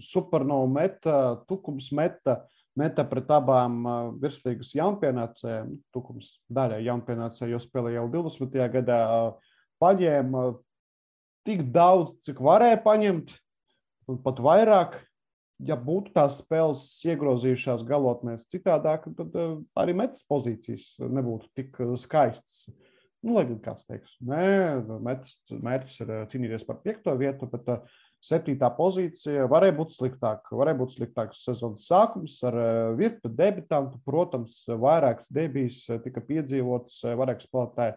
Supernova Meta, Tukums Meta pret abām virslīgas jaunpienācējiem, Tukums daļai jaunpienācēji, jo spēlē jau 20. gadā, paņēma tik daudz, cik varēja paņemt, un pat vairāk. Ja būtu tās spēles iegrozījušās galotnēs citādāk, tad arī Metas pozīcijas nebūtu tik skaistas. Lai gan kāds teiks, mērķis ir cīnīties par 5. vietu, bet 7. pozīcija varēja būt sliktāka. Varēja būt sliktāks sezonas sākums ar virkni debitantu. Protams, vairākas debijas tika piedzīvotas, vairāk spēlētāji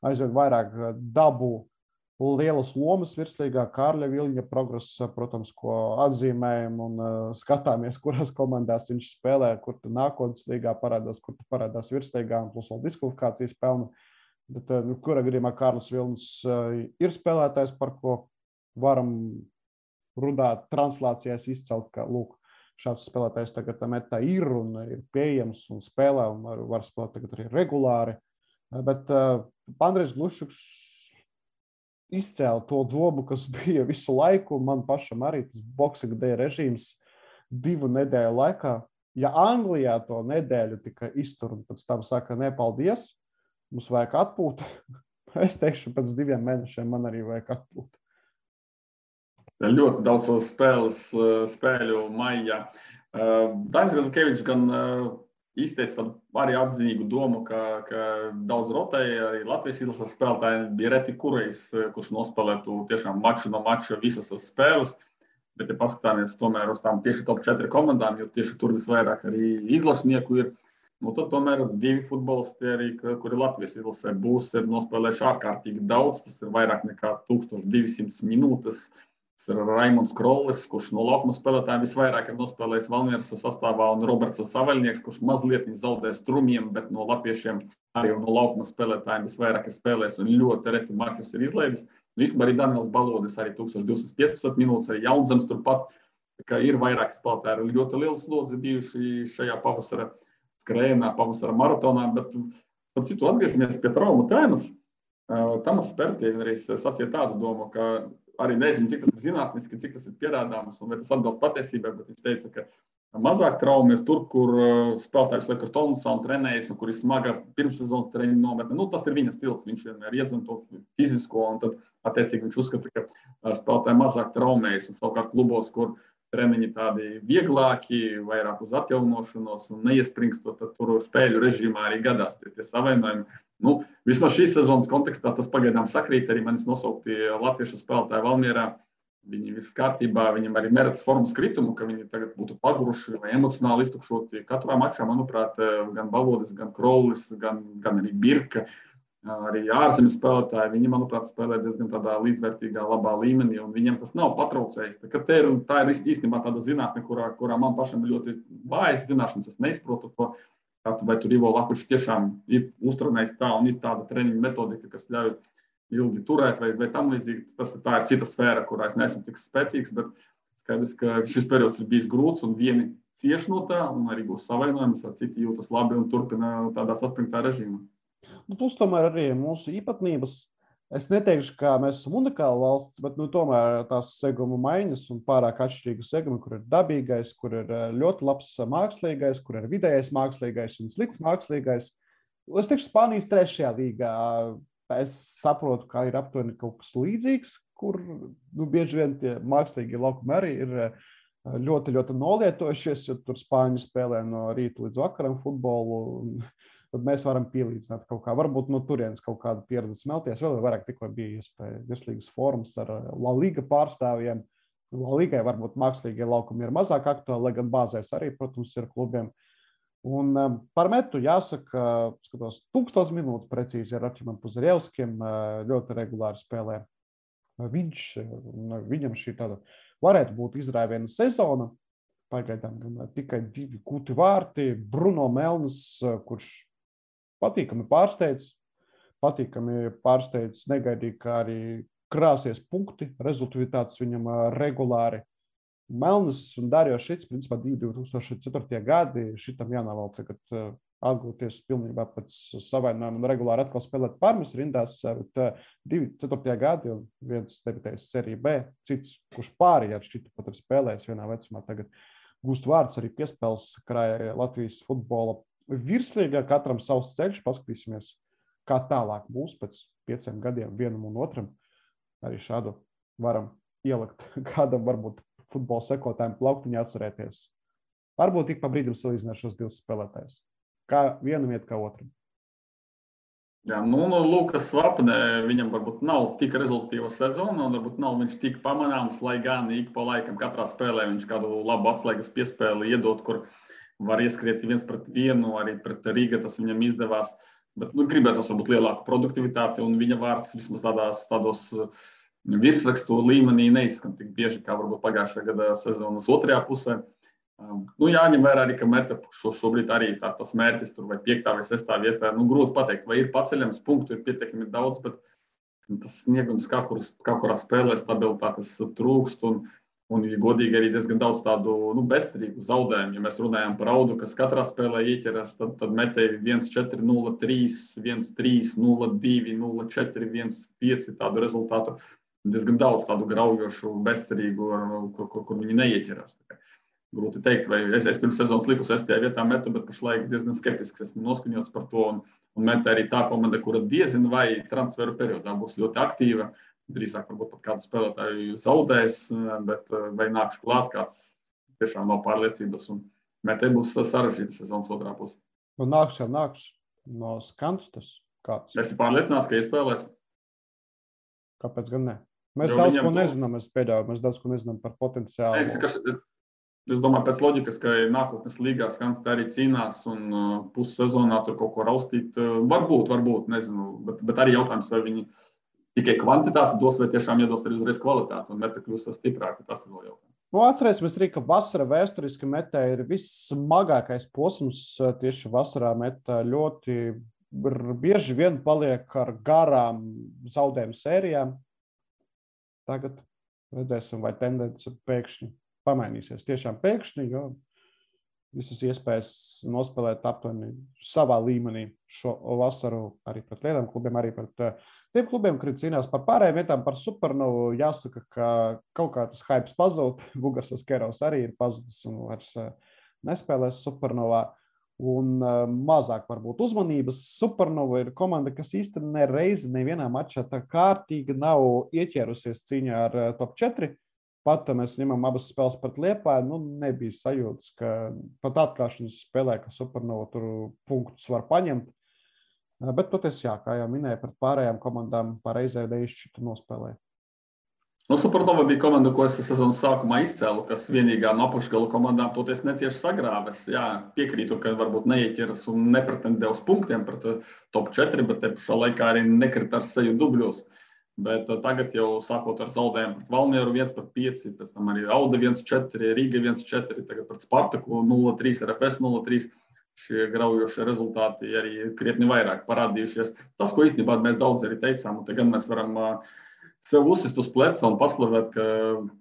aizvien vairāk dabū lielas lomas virslīgā. Kārļa Viļņa progress, protams, ko atzīmējam un skatāmies, kurās komandās viņš spēlē, kur tu nākotnes līgā parādās, kur tu parādās virslīgā un plus vēl diskvalifikācijas pelna. Bet, kurā gadījumā Kārlis Vilnis ir spēlētājs, par ko varam runāt translācijās izcelt, ka lūk, šāds spēlētājs tagad Metā ir un ir pieejams un spēlē un var spēlēt tagad arī regulāri. Bet Andrejs Gluščuks izcēla to domu, kas bija visu laiku, man pašam arī tas Boxing Day režīms 2 nedēļu laikā. Ja Anglijā to nedēļu tika iztur un pēc tam saka, nepaldies, mums vajag atpūt. Es teikšu, pēc 2 mēnešiem man arī vajag atpūt. Ļoti daudz spēļu maijā. Dainis Gazikevičs gan izteica tādu arī atzinīgu domu, ka daudz rotēja, arī Latvijas izlases spēlētāji bija reti kurējs, kurš nospēlētu tiešām maču no mača visas spēles. Bet, ja paskatāmies tomēr uz tām tieši top 4 komandām, jo tieši tur visvairāk arī izlašnieku ir, tad tomēr 2 futbolisti arī, kuri Latvijas izlasē būs, ir nospēlējuši ārkārtīgi daudz. Tas ir vairāk nekā 1200 minūtes. Tas ir Raimonds Krollis, kurš no laukuma spēlētājiem visvairāk ir nospēlējis Valmieras sastāvā, un Roberts Savaļnieks, kurš mazliet zaudē strumiem, bet no latviešiem arī no laukuma spēlētājiem visvairāk ir spēlējis un ļoti reti mačus ir izlaidis. Īstenībā arī Daniels Balodis, arī 1215 minūtes, arī Jaunzems turpat, ka ir vairāk spēlētāji, ir ļoti liels slodzi bijuši šajā pavasara skrējienā, pavasara maratonā, bet par citu atgriežamies pie traumu tēmas. Tamas Spērtiņš arī sacīja tādu domu, ka arī nezinu, cik tas ir zinātniski, cik tas ir pierādāms un vai tas atbilst patiesībai, bet viņš teica, ka mazāk trauma ir tur, kur spēlētājs liek ar tonusā un trenējas, un kur ir smaga pirmssezonas treniņa nometne. Nu, tas ir viņa stils, viņš vienmēr iedzem to fizisko, un tad attiecīgi viņš uzskata, ka spēlētāji mazāk traumējas, un savukārt klubos, kur treniņi tādi vieglāki, vairāk uz atjaunošanos un neiespringstot, tad tur spēļu režīmā arī gadās tie savainojumi. Nu, vismaz šīs sezonas kontekstā tas pagaidām sakrīt, arī manis nosaukti latviešu spēlētāji Valmierā. Viņi viss kārtībā, viņam arī neredz formas kritumu, ka viņi tagad būtu paguruši vai emocionāli iztukšoti. Katrā mačā, manuprāt, gan Balodis, gan Krollis, gan arī Birka, arī ārzemju spēlētāji, viņi, manuprāt, spēlē diezgan tādā līdzvērtīgā, labā līmenī, un viņiem tas nav patraucējis. Tā ir īstenībā tāda zinātne, kurā man pašam ļoti vājas zināšanas, es neizprotu to, vai tur Ivo Lakučs tiešām ir uztrenējis tā un ir tāda treniņa metodika, kas ļauj ilgi turēt vai tam līdzīgi. Tā ir cita sfēra, kurā es neesmu tik spēcīgs, bet skaidrs, ka šis periods ir bijis grūts un vieni cieš no tā un arī būs savainojums, vai citi jūtas labi un turpina tādā saspringtā režīmā. Plus tomēr arī mūsu īpatnības. Es neteikšu, ka mēs esam unikāla valsts, bet tomēr tās seguma maiņas un pārāk atšķirīga seguma, kur ir dabīgais, kur ir ļoti labs mākslīgais, kur ir vidējais mākslīgais un slikts mākslīgais. Es teikšu, Spānijas 3. līgā. Es saprotu, ka ir aptuveni kaut kas līdzīgs, kur bieži vien tie mākslīgie laukumi arī ir ļoti, ļoti nolietojušies, jo tur Spāņi spēlē no rīta līdz vakaram futbolu. Tad mēs varam pielīdzināt kaut kā, varbūt no turienes kaut kādu pieredzi smelties. Vēl vairāk tikko bija iespēja virslīgas formas ar La Liga pārstāvjiem. La Ligai varbūt mākslīgie laukumi ir mazāk aktuāli, lai gan bāzēs arī, protams, ir klubiem. Un par metu jāsaka, skatos, 1000 minūtes precīzi ar Arčimam Puzarevskim, ļoti regulāri spēlē. Viņam šī tāda varētu būt izrāviena sezona. Pagaidām tikai 2 gūti vārti. Bruno Melnis, kurš patīkami pārsteidz, negaidīja, kā arī krāsies punkti, rezultāts viņam regulāri. Melnis un Darjo Šits, principā 2004. gadi, šitam jānovēl tagad atgūties pilnībā pēc savainojuma un regulāri atkal spēlēt Parmas rindās, bet 2004. gadi, un viens debitējis Serija B, cits, kurš pārējāt Šita pat ir spēlējis vienā vecumā, tagad gūst vārds arī piespēles krāja Latvijas futbola virslīgā, katram savs ceļš, paskatīsimies, kā tālāk būs pēc 5 gadiem vienam un otram. Arī šādu varam ielikt kādam varbūt futbola sekotājiem plauktiņā atcerēties. Varbūt tik pa brīdim salīdzināt šos 2 spēlētājus. Kā vienam iet, kā otram. Jā, no Lukas Svapne viņam varbūt nav tik rezultīva sezona, un varbūt nav viņš tik pamanāms, lai gan ik pa laikam katrā spēlē viņš kādu labu atslēgas piespēli iedot, kur var ieskriet 1-1, arī pret Rīga tas viņam izdevās. Bet gribētos varbūt lielāku produktivitāti, un viņa vārds vismaz tādos virsrakstu līmenī neizskan tik bieži, kā varbūt pagājušajā gada sezonas otrajā pusē. Jāņem vērā arī, ka meta šobrīd arī tas mērķis tur vai 5. vai 6. vietā. Grūti pateikt, vai ir paceļams, punktu ir pietiekami daudz, bet tas sniegums kā kurā spēlē stabilitātes trūkst un ja godīgi arī diezgan daudz tādu bezcerīgu zaudējumu. Ja mēs runājam par Audu, kas katrā spēlē ieķeras, tad metēji 1-4, 0-3, 1-3, 0-2, 0-4, 1-5 tādu rezultātu. Diezgan daudz tādu graujošu, bezcerīgu, kur viņi neieķerās. Grūti teikt, vai es pirms sezonas liku 6. vietā metu, bet pašlaik diezgan skeptisks esmu noskaņots par to. Un meta arī tā komanda, kura diezin vai transferu periodā būs ļoti aktīva. Drīzāk varbūt pat kādu spēlētāju zaudēs, bet vai nāks klāt kāds tiešām nav pārliecības. Un metai būs sarežģīta sezonas otrā puse. Nāks jau nāks no skantus tas kāds. Es esmu pārliecināts, ka iespēlēs. Kāpēc gan ne? Mēs daudz ko nezinām, mēs daudz ko nezinām par potenciālu. Es domāju, pēc loģikas, ka nākotnes līgā Skans tā arī cīnās un pussezonā tur kaut ko raustīt. Varbūt, nezinu, bet arī jautājums, vai viņi tikai kvantitāti dos, vai tiešām iedos arī uzreiz kvalitāti, un meta kļūs stiprāka, tas ir vēl jautājums. Atcerēsimies arī, ka vasara vēsturiski metā ir vissmagākais posms. Tieši vasarā metā ļoti bieži vien paliek ar garām zaudējumu sērijām. Tagad redzēsim, vai tendence pēkšņi pamainīsies. Tiešām pēkšņi, jo visas iespējas nospēlēt aptuveni savā līmenī šo vasaru arī pret lieliem klubiem, arī pret tiem klubiem, kuri cīnās par pārējiem vietām, par Supernovu. Jāsaka, ka kaut kā tas hypes pazūd. Bugarsas Kerovs arī ir pazudis un vairs nespēlēs Supernovā. Un mazāk varbūt uzmanības. Supernova ir komanda, kas īstenībā nereizi nevienā mačā tā kārtīgi nav ieķērusies cīņā ar top 4. Pat mēs ņemam abas spēles pret Liepāju, nebija sajūtas, ka pat atklāšanas spēlē, ka Supernova tur punktus var paņemt. Bet toties, jā, kā jau minēju, pret pārējām komandām pareizē neizšķirtu nospēlē. Supernova bija komanda, ko es sezonas sākumā izcēlu, kas vienīgā no apakšgala komandām toties necieši sagrāves. Jā, piekrītu, ka varbūt neieķeras un nepretendē uz punktiem pret top 4, bet te pašā laikā arī nekrita ar seju dubļos. Bet tagad jau sākot ar zaudējumu pret Valmieru 1-5, pēc tam arī Auda 1-4, Rīga 1-4, tagad pret Spartaku 0-3, RFS 0-3. Šie graujošie rezultāti arī krietni vairāk parādījušies. Tas, ko īstenībā mēs daudz arī teicām, un tagad mēs varam sev uzsist uz pleca un paslavēt, ka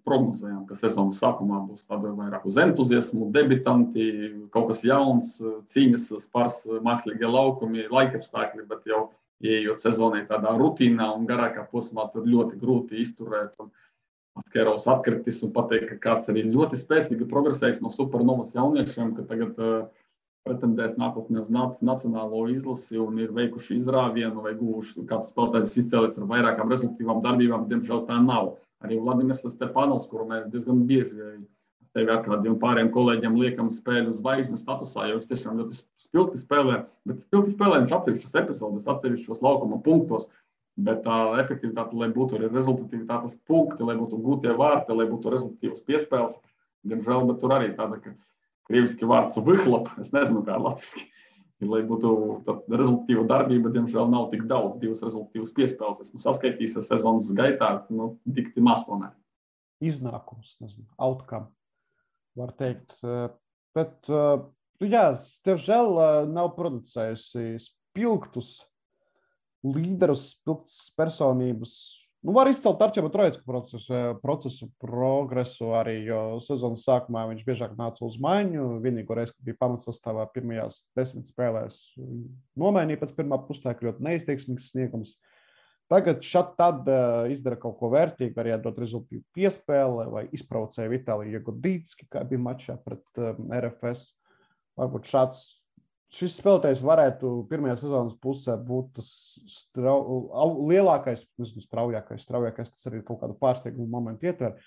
prognozējām, ka sezonas sākumā būs tāda vairāk uz entuziasmu, debitanti, kaut kas jauns, cīņas spars, mākslīgie laukumi, laikapstākļi, bet jau ieejot sezonai tādā rutīnā un garākā posmā, tur ļoti grūti izturēt. Kerovs atkritis un pateikt, ka kāds arī ļoti spēcīgi progresējis no Supernovas jauniešiem, ka tagad pretendēs nākotnē uz nacionālo izlasi un ir veikuši izrāvienu vai guvuši kāds spēlētājs izcēlies ar vairākām rezultīvām darbībām. Diemžēl tā nav. Arī Vladimirs Stepanovs, kuru mēs diezgan bieži tevi ar kādiem pāriem kolēģiem liekam spēļu zvaigznes statusā, jo viņš tiešām ļoti spilgti spēlē, bet spilgti spēlē viņš atsevišķas epizodes, atsevišķos laukuma punktos, bet tā efektivitāte, lai būtu arī rezultatīvitātes punkti, lai būtu gūtie vārti, lai būtu rezultatīvas piespēles, diemžēl, bet tur arī tāda, ka krieviski vārds vyhlap, es nezinu kā latviski, lai būtu rezultatīva darbība, diemžēl nav tik daudz, 2 rezultatīvas piespēles. Esmu saskaitījis sezonas gaitā, dikti maz tomēr. Iznākums, nezinu, outcome. Var teikt, bet, jā, tev žēl nav producējusi spilgtus līderus, spilgtus personības. Var izcelt Arčēba Trojecka procesu progresu arī, jo sezonas sākumā viņš biežāk nāca uz maiņu. Vienīgo reizi, kad bija pamatsastāvā pirmajās 10 spēlēs, nomainīja pēc pirmā pustāja, ļoti neizteiksmīgs sniegums. Tagad tad izdara kaut ko vērtīgu, arī atdot rezultīvu piespēli vai izprovocēja Vitāliju Jagodītski, kā bija mačā pret RFS. Varbūt šis spēlētājs varētu pirmajā sezonas pusē būt tas lielākais, nezinu, straujākais, tas arī kaut kādu pārsteigumu momentu ietver.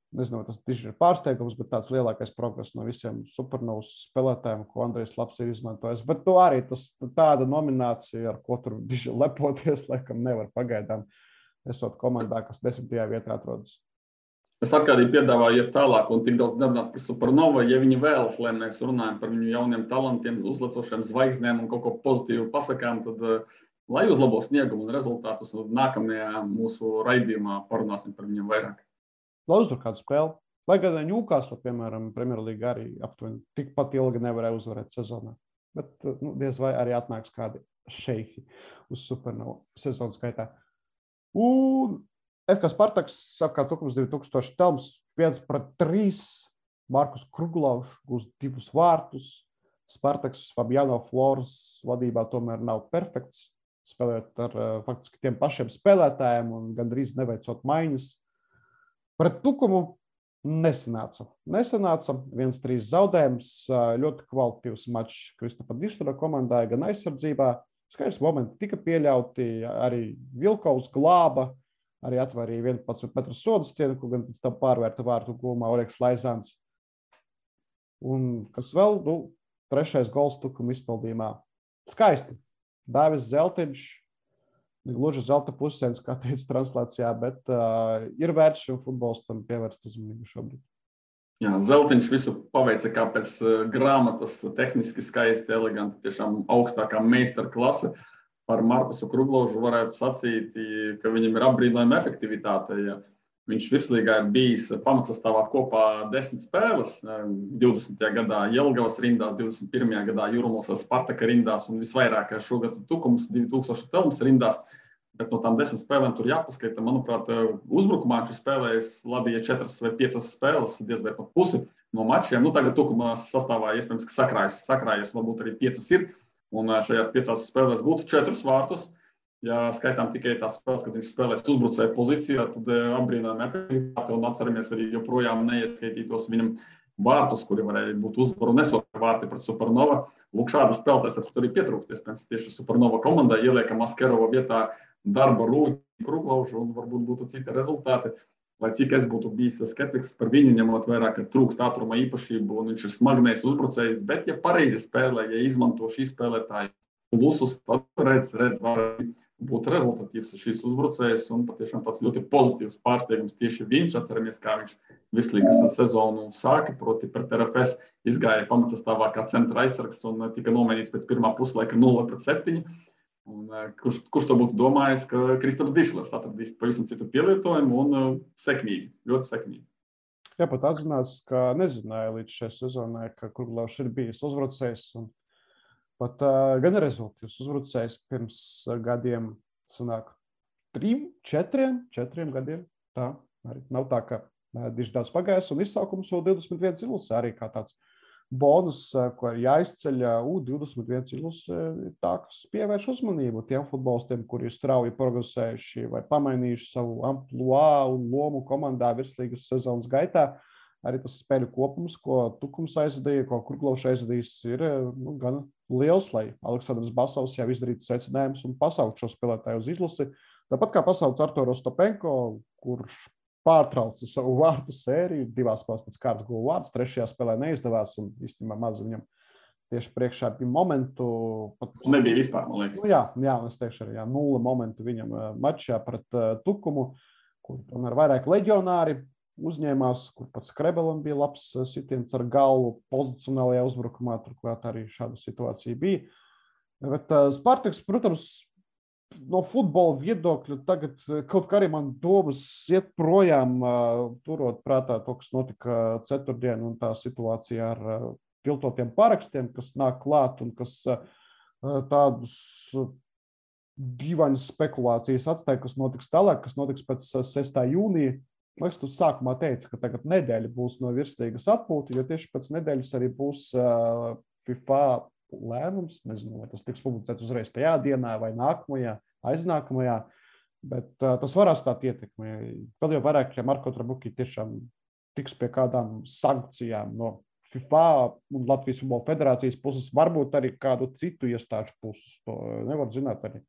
Nezinu, tas tieši ir pārsteigums, bet tāds lielākais progress no visiem Supernovas spēlētājiem, ko Andrejs Labs ir izmantojis. Bet to arī tāda nominācija, ar ko tur diži lepoties, laikam nevar pagaidām, esot komandā, kas 10. vietā atrodas. Es Arkādī piedāvāju iet tālāk un tik daudz nerunāt par Supernovu, ja viņi vēlas, lai mēs runājam par viņu jauniem talantiem, uzlecošiem zvaigznēm un kaut ko pozitīvu pasakām, tad lai uzlabo sniegumu un rezultātus, un nākamajā mūsu raidījumā parunāsim par viņiem vairāk. Lai uzvar kādu spēli. Lai gan Newcastle, piemēram, Premjerlīga arī aptuveni tikpat ilgi nevarēja uzvarēt sezonā. Bet diez vai arī atnāks kādi šeihi uz Supernovu sezonas gaitā. Un FK Spartaks apkārt 2000 telms 1-3. Markus Kruglovs gūst 2 vārtus. Spartaks Fabiano Flores vadībā tomēr nav perfekts. Spēlējot ar faktiski tiem pašiem spēlētājiem un gandrīz neveicot maiņas. Pret Tukumu nesanāca. 1-3 zaudējums, ļoti kvalitatīvs mačs Kristapa Dištora komandai, gan aizsardzībā. Skaidrs momenti tika pieļauti, arī Vilkovs glāba, arī atvarīja 11 metru sodu stienu, ko gan pēc tam pārvērta vārtu gūmā Oreks Laizāns. Un kas vēl, 3. gols Tukuma izpildījumā. Skaisti. Dāvis Zeltiņš. Gluži zelta pusēns, kā teica translācijā, bet ir vērts šim futbolistam pievērst uzmanību šobrīd. Jā, Zeltiņš visu paveica kā pēc grāmatas, tehniski skaisti, eleganti, tiešām augstākā meistara klase. par Markusu Krugložu varētu sacīt, ka viņam ir apbrīnojama efektivitāte. Ja viņš virslīgā ir bijis pamatsastāvā kopā 10 spēles, 20. gadā Jelgavas rindās, 21. gadā Jūrmālas Spartaka rindās un visvairāk šogad Tukums 2000 Telmas rindās. Bet no tām 10 spēlēm tur jāpaskaita. Manuprāt, uzbrukumā viņš spēlējis labi, ja 4 vai 5 spēles, diez vai pat pusi no mačiem. Nu, tagad Tukumā sastāvā iespējams, ka sakrājas, varbūt arī 5 ir. Un šajās 5 spēlēs būtu 4 vārtus. Ja skaitām tikai tās spēles, kad viņš spēlēs uzbrucēju pozīcijā, tad apbrīnojama efektivitāte un atceramies arī joprojām neieskaitītos viņam vārtus, kuri varēja būt uzvaru nesot vārti pret Supernova. Lūk, šādas spēlētājs tur ir pietrūkst. Iespējams, tieši Supernova komandai ieliekam Askerova vietā darba Rūģi, Krugložu un varbūt būtu citi rezultāti. Lai cik es būtu bijis skeptiks par viņu, ņemot vērā, ka trūkst ātruma īpašību un viņš ir smagnējs uzbrucējs, bet ja pareizi spēlē, ja izmanto šī spēlētāja plusus, tad redz var būt rezultatīvs šīs uzbrucējs un patiešām tāds ļoti pozitīvs pārsteigums tieši viņš. Atceramies, kā viņš virslīgas sezonu sāka, proti pret RFS izgāja pamatsastāvā kā centra aizsargs un tika nomainīts pēc pirmā puslaika 0-7. Un, kurš to būtu domājis, ka Kristaps Dišlers atradīs pavisam citu pielietojumu un sekmīgi, ļoti sekmīgi. Jā, pat atzināts, ka nezināja līdz šai sezonai, ka Krugložs ir bijis uzbrucējs un pat gan rezultāts uzbrucējs pirms gadiem sanāk 4 gadiem. Tā arī nav tā, ka diši daudz pagājis un izsaukums vēl 21 ilus arī kā tāds bonus, ko ir jāizceļ U21 ilus, tā, kas pievērš uzmanību tiem futbolistiem, kuri ir strauji progresējuši vai pamainījuši savu ampluā un lomu komandā virslīgas sezonas gaitā. Arī tas spēļu kopums, ko Tukums aizvadīja, ko Krugložs aizvadījis, ir gan liels, lai Aleksandrs Basovs jau izdarītu secinājumus un pasaukt šo spēlētāju uz izlasi. Tāpat kā pasaukt Arturu Ostapenko, kurš pārtrauca savu vārtu sēriju, 2 spēles pēc kārtas guva vārds, 3. spēlē neizdevās un īstenībā maz viņam tieši priekšā bija momentu. Nebija vispār, man liekas. Jā, es teikšu arī 0 momentu viņam mačā pret Tukumu, kur tomēr vairāk leģionāri uzņēmās, kur pats Krebelam bija labs sitiens ar galvu pozicionālajā uzbrukumā, turklāt arī šāda situācija bija. Bet Spartaks, protams, no futbola viedokļa tagad kaut kā arī man domas iet projām, turot prātā to, kas notika ceturtdien un tā situācija ar viltotiem parakstiem, kas nāk klāt un kas tādus dīvaņas spekulācijas atstāja, kas notiks tālāk, kas notiks pēc 6. jūnija. Man liekas, tu sākumā teici, ka tagad nedēļa būs no virslīgas atpūta, jo tieši pēc nedēļas arī būs FIFA lēmums, nezinu, vai tas tiks publicēts uzreiz tajā dienā vai nākamajā, aiznākamajā, bet tas var atstāt ietekmi. Vēl jau vairāk, ja Marko Trabuki tiešām tiks pie kādām sankcijām no FIFA un Latvijas Futbola Federācijas puses, varbūt arī kādu citu iestāžu puses, to nevar zināt arī.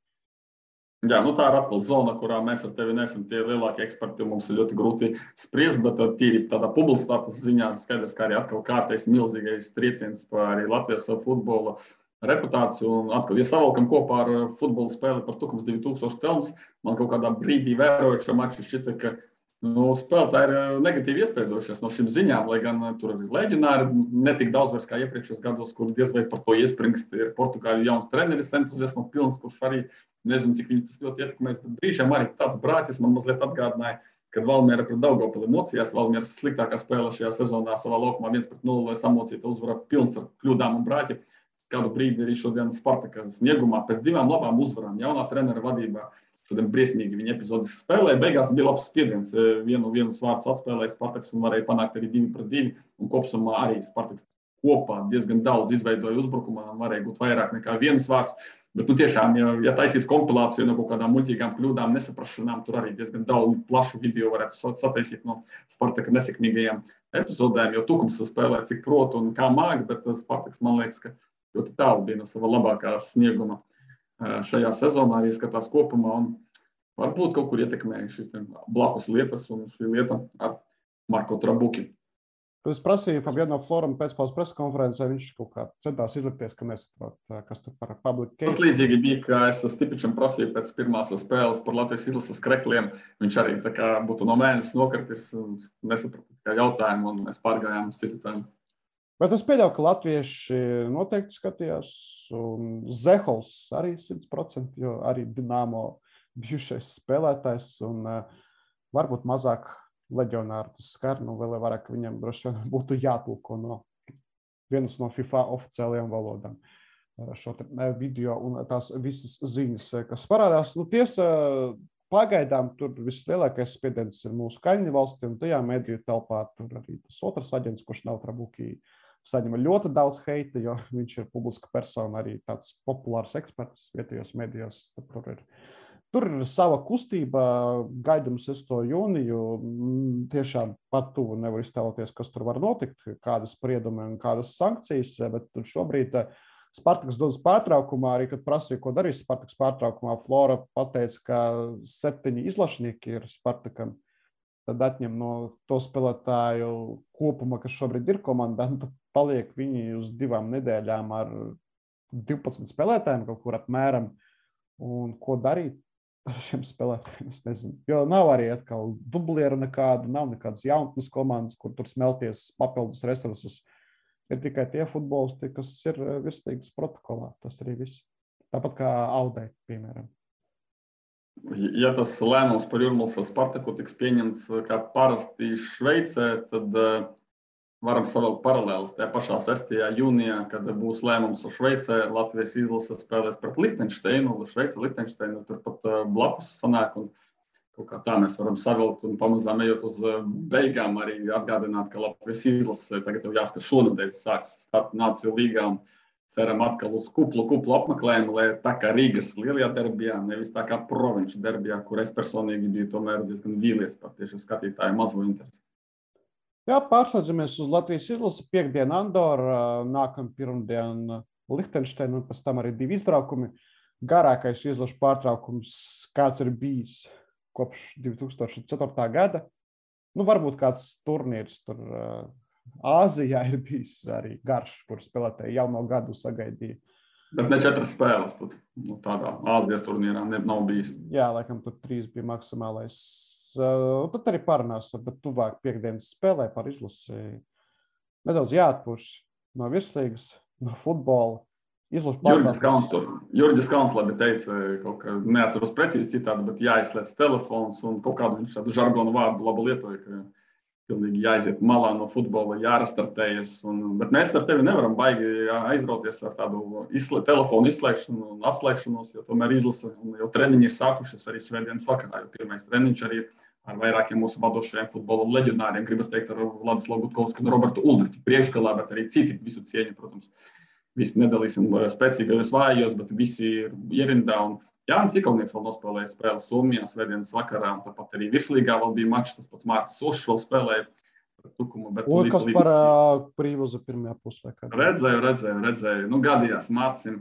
Jā, tā ir atkal zona, kurā mēs ar tevi neesam tie lielākie eksperti, un mums ir ļoti grūti spriest, bet tīri tādā publicitātes ziņā skaidrs, kā arī atkal kārtais milzīgais trieciens par arī Latvijas futbola reputāciju. Un atkal, ja savalkam kopā ar futbola spēli par Tukums 2000 Telmas, man kaut kādā brīdī vērojot šo maču šķita, ka spēlētāji ir negatīvi iespaidojušies no šīm ziņām, lai gan tur arī leģionāri netik daudz vairs kā iepriekšējos gados, kur diez vai par to iespringst, ir Portugāļu jauns treneris entuziasma pilns, kurš arī nezinu, cik viņi tas ļoti ietekmēs, bet brīžām arī tāds brāķis man mazliet atgādināja, kad Valmiera pret Daugavpili mocījās. Valmieras sliktākā spēle šajā sezonā savā laukumā 1-0 samocīta uzvara pilns ar kļūdām un brāķi. Kādu brīdi arī šodien Spartaka sniegumā pēc 2 labām uzvarām jaunā trenera vadībā. Šodien briesmīgi viņa epizodiski spēlēja. Beigās bija labs spiediens. Vienu vārdus atspēlēja Spartaks un varēja panākt arī 2-2. Un kopsumā arī Spartaks kopā diezgan daudz izveidoja uzbrukumā un varēja būt vairāk nekā 1 vārds. Bet tiešām, ja taisītu kompilāciju no kaut kādām muļķīgām kļūdām, nesaprašanām, tur arī diezgan daudz plašu video varētu sataisīt no Spartaka nesekmīgajām epizodēm, jo Tukums spēlē cik prot un kā māk, bet Spartaks, man liekas, ka ļoti tālu bija no sava labākā snieguma šajā sezonā, arī skatās kopumā, un varbūt kaut kur ietekmēja šīs blakus lietas un šī lieta ar Marko Trabuki. Es prasīju Fabiano Floram pēcpaules preskonferencē, viņš kaut kā centās izlikties, ka nesaprot, kas tur par public case. Tas līdzīgi bija, ka es Stipičam prasīju pēc pirmās spēles par Latvijas izlases krekliem. Viņš arī tā kā būtu no mēnesis nokritis un nesaprata jautājumu, un mēs pārgājām uz citu tēmu. Bet es pieļauju, ka latvieši noteikti skatījās, un Zehols arī 100%, jo arī Dinamo bijušais spēlētājs, un varbūt mazāk leģionāri tas skar, vēl vairāk viņam droši vien būtu jātulko no vienas no FIFA oficiālajām valodām šo video un tās visas ziņas, kas parādās. Tiesa, pagaidām tur vislielākais spiediens ir mūsu kaimiņu valsti, un tajā mediju telpā tur arī tas otrs aģents, kurš nav Trabuki, saņem ļoti daudz heita, jo viņš ir publiska persona, arī tāds populārs eksperts vietējos medijos. Tur ir sava kustība, gaidām 6. jūniju. Tiešām pat tuvu nevar iztēloties, kas tur var notikt, kādas spriedumi un kādas sankcijas, bet šobrīd Spartaks dodas pārtraukumā, arī kad prasīja, ko darīs Spartaks pārtraukumā, Flora pateica, ka 7 izlašnieki ir Spartakam. Tad atņem no to spēlētāju kopuma, kas šobrīd ir komandā, tad paliek viņi uz 2 nedēļām ar 12 spēlētājiem kaut kur apmēram. Un ko darīt ar šiem spēlētājiem, es nezinu. Jo nav arī atkal dublieru nekādu, nav nekādas jaunatnes komandas, kur tur smelties papildus resursus. Ir tikai tie futbolisti, kas ir virslīgas protokolā. Tas arī viss. Tāpat kā Audai, piemēram. Ja tas lēmums par Jūrmālas Spartaku tiks pieņemts kā parasti Šveicē, tad varam savilkt paralēlus. Tajā pašā 6. jūnijā, kad būs lēmums ar Šveicē, Latvijas izlase spēlēs pret Lihtenšteinu, Šveice Lihtenšteinu turpat blakus sanāk. Un kaut kā tā mēs varam savilkt un pamazām ejot uz beigām arī atgādināt, ka Latvijas izlase tagad jau jāskatās šonadēļ sāks starta Nāciju līgā. Ceram atkal uz kuplu apmeklējumu, lai tā kā Rīgas lielajā derbijā, nevis tā kā provinču derbijā, kur es personīgi biju tomēr diezgan vīlies par tieši skatītāju mazo interesi. Jā, pārslēdzamies uz Latvijas izlasi. Piektdien Andora, nākam pirmdien Lihtenšteinu un pēc tam arī 2 izbraukumi. Garākais izlašu pārtraukums, kāds ir bijis kopš 2004. gada. Varbūt kāds turnīrs tur Āzijā ir bijis arī garš, kur spēlētāji jau no gadu sagaidīja. Bet ne 4 spēles tad, tādā Āzijas turnīrā nav bijis. Jā, laikam tur 3 bija maksimālais. Tad arī parunāsim, bet tuvāk piekdienas spēlē par izlasi. Nedaudz jāatpūš no virslīgas, no futbola. Jurģis Kalns labi teica, kaut kā neatceros precīzi citādi, bet jāizslēdz telefons un kaut kādu viņš tādu žargonu vārdu labu lietoja, ka pilnīgi jāiziet malā no futbola, jārastartējas. Bet mēs ar tevi nevaram baigi aizrauties ar tādu telefonu izslēgšanu un atslēgšanos, jo tomēr izlase un jau treniņi ir sākušies arī svētdienas vakarā, jo pirmais treniņš arī ar vairākiem mūsu vadošajiem futbola leģionāriem, gribas teikt ar Vladislavu Gutkovsku un Robertu Uldriķu priekšgalā, bet arī citi visu cieņu, protams. Visi nedalīsim spēcīgajos vājos, bet visi ir ierindā. Un Jānis Ikaunieks vēl nospēlēja spēli Somijā svētdienas vakarā, un tāpat arī virslīgā vēl bija mačs, tas pats Mārcis Ošs vēl spēlēja Tukumu. Un kas par Prīvozu pirmajā pusē? Redzēju. Gadījās Mārcim.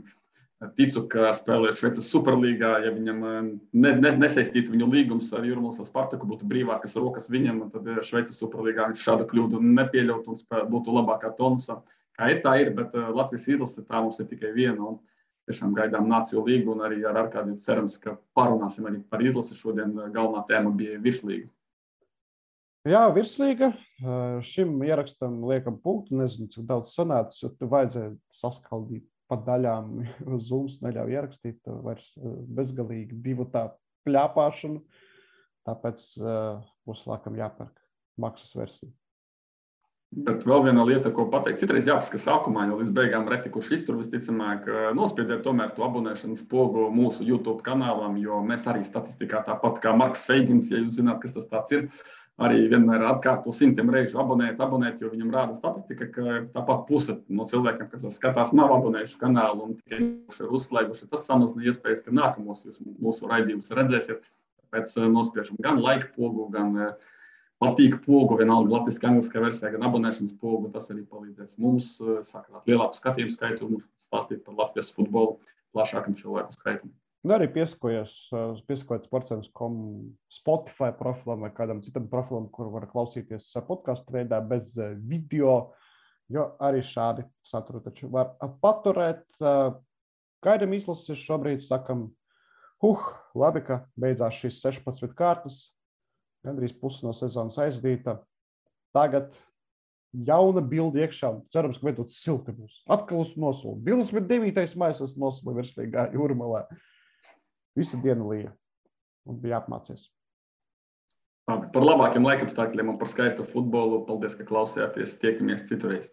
Ticu, ka spēlējot Šveices Superlīgā, ja viņam nesaistītu viņu līgums ar Jūrmālas Spartaku, būtu brīvākas rokas viņam, tad Šveices Superlīgā viņš šādu kļūdu nepieļautu un būtu labākā tonusā. Kā ir, tā ir, bet Latvijas izlase tā mums ir tikai viena. Un tiešām gaidām Nāciju līgu un arī ar Arkādiju cerams, ka parunāsim arī par izlasi. Šodien galvenā tēma bija virslīga. Jā, virslīga. Šim ierakstam liekam punktu. Nezinu, cik daudz sanācis, jo te vajadzēja saskaldīt pa daļām. Zooms neļauj ierakstīt vairs bezgalīgi 2 tā pļāpāšanu. Tāpēc būs laikam jāpērk maksas versija. Bet vēl viena lieta, ko pateikt, citreiz jāpaskatās sākumā, jo līdz beigām reti, kurš iztur visticamāk, nospiediet tomēr to abonēšanas pogu mūsu YouTube kanālam, jo mēs arī statistikā tāpat kā Marks Feigins, ja jūs zināt, kas tas tāds ir, arī vienmēr atkārto 100 reižu abonēt, jo viņam rāda statistika, ka tāpat puse no cilvēkiem, kas skatās, nav abonējuši kanālu un tikai ir uzslēguši. Tas samazina iespējas, ka nākamos jūs mūsu raidījumus redzēsiet. Tāpēc nospiežam gan like pogu, gan patīk pogu, vienalga latviski, angliskā versijā, gan abonēšanas pogu. Tas arī palīdzēs mums sakrāt lielāku skatījumu skaitu un stāstīt par Latvijas futbolu plašākam cilvēku skaitam. Arī piesakojiet sportcentrs.com Spotify profilam vai kādam citam profilam, kur var klausīties podcastu veidā bez video, jo arī šādi saturu taču var paturēt. Gaidam izlases šobrīd, sakam, labi, ka beidzās šīs 16 kārtas. Gandrīz pusi no sezonas aizdīta. Tagad jauna bilde iekšā. Cerams, ka veidot silti būs. Atkal es nosolu. 29. maijs es nosolu virslīgā Jūrmalā. Visu dienu lija. Un bija apmācies. Par labākiem laikapstākļiem un par skaistu futbolu. Paldies, ka klausījāties. Tiekamies citurreiz.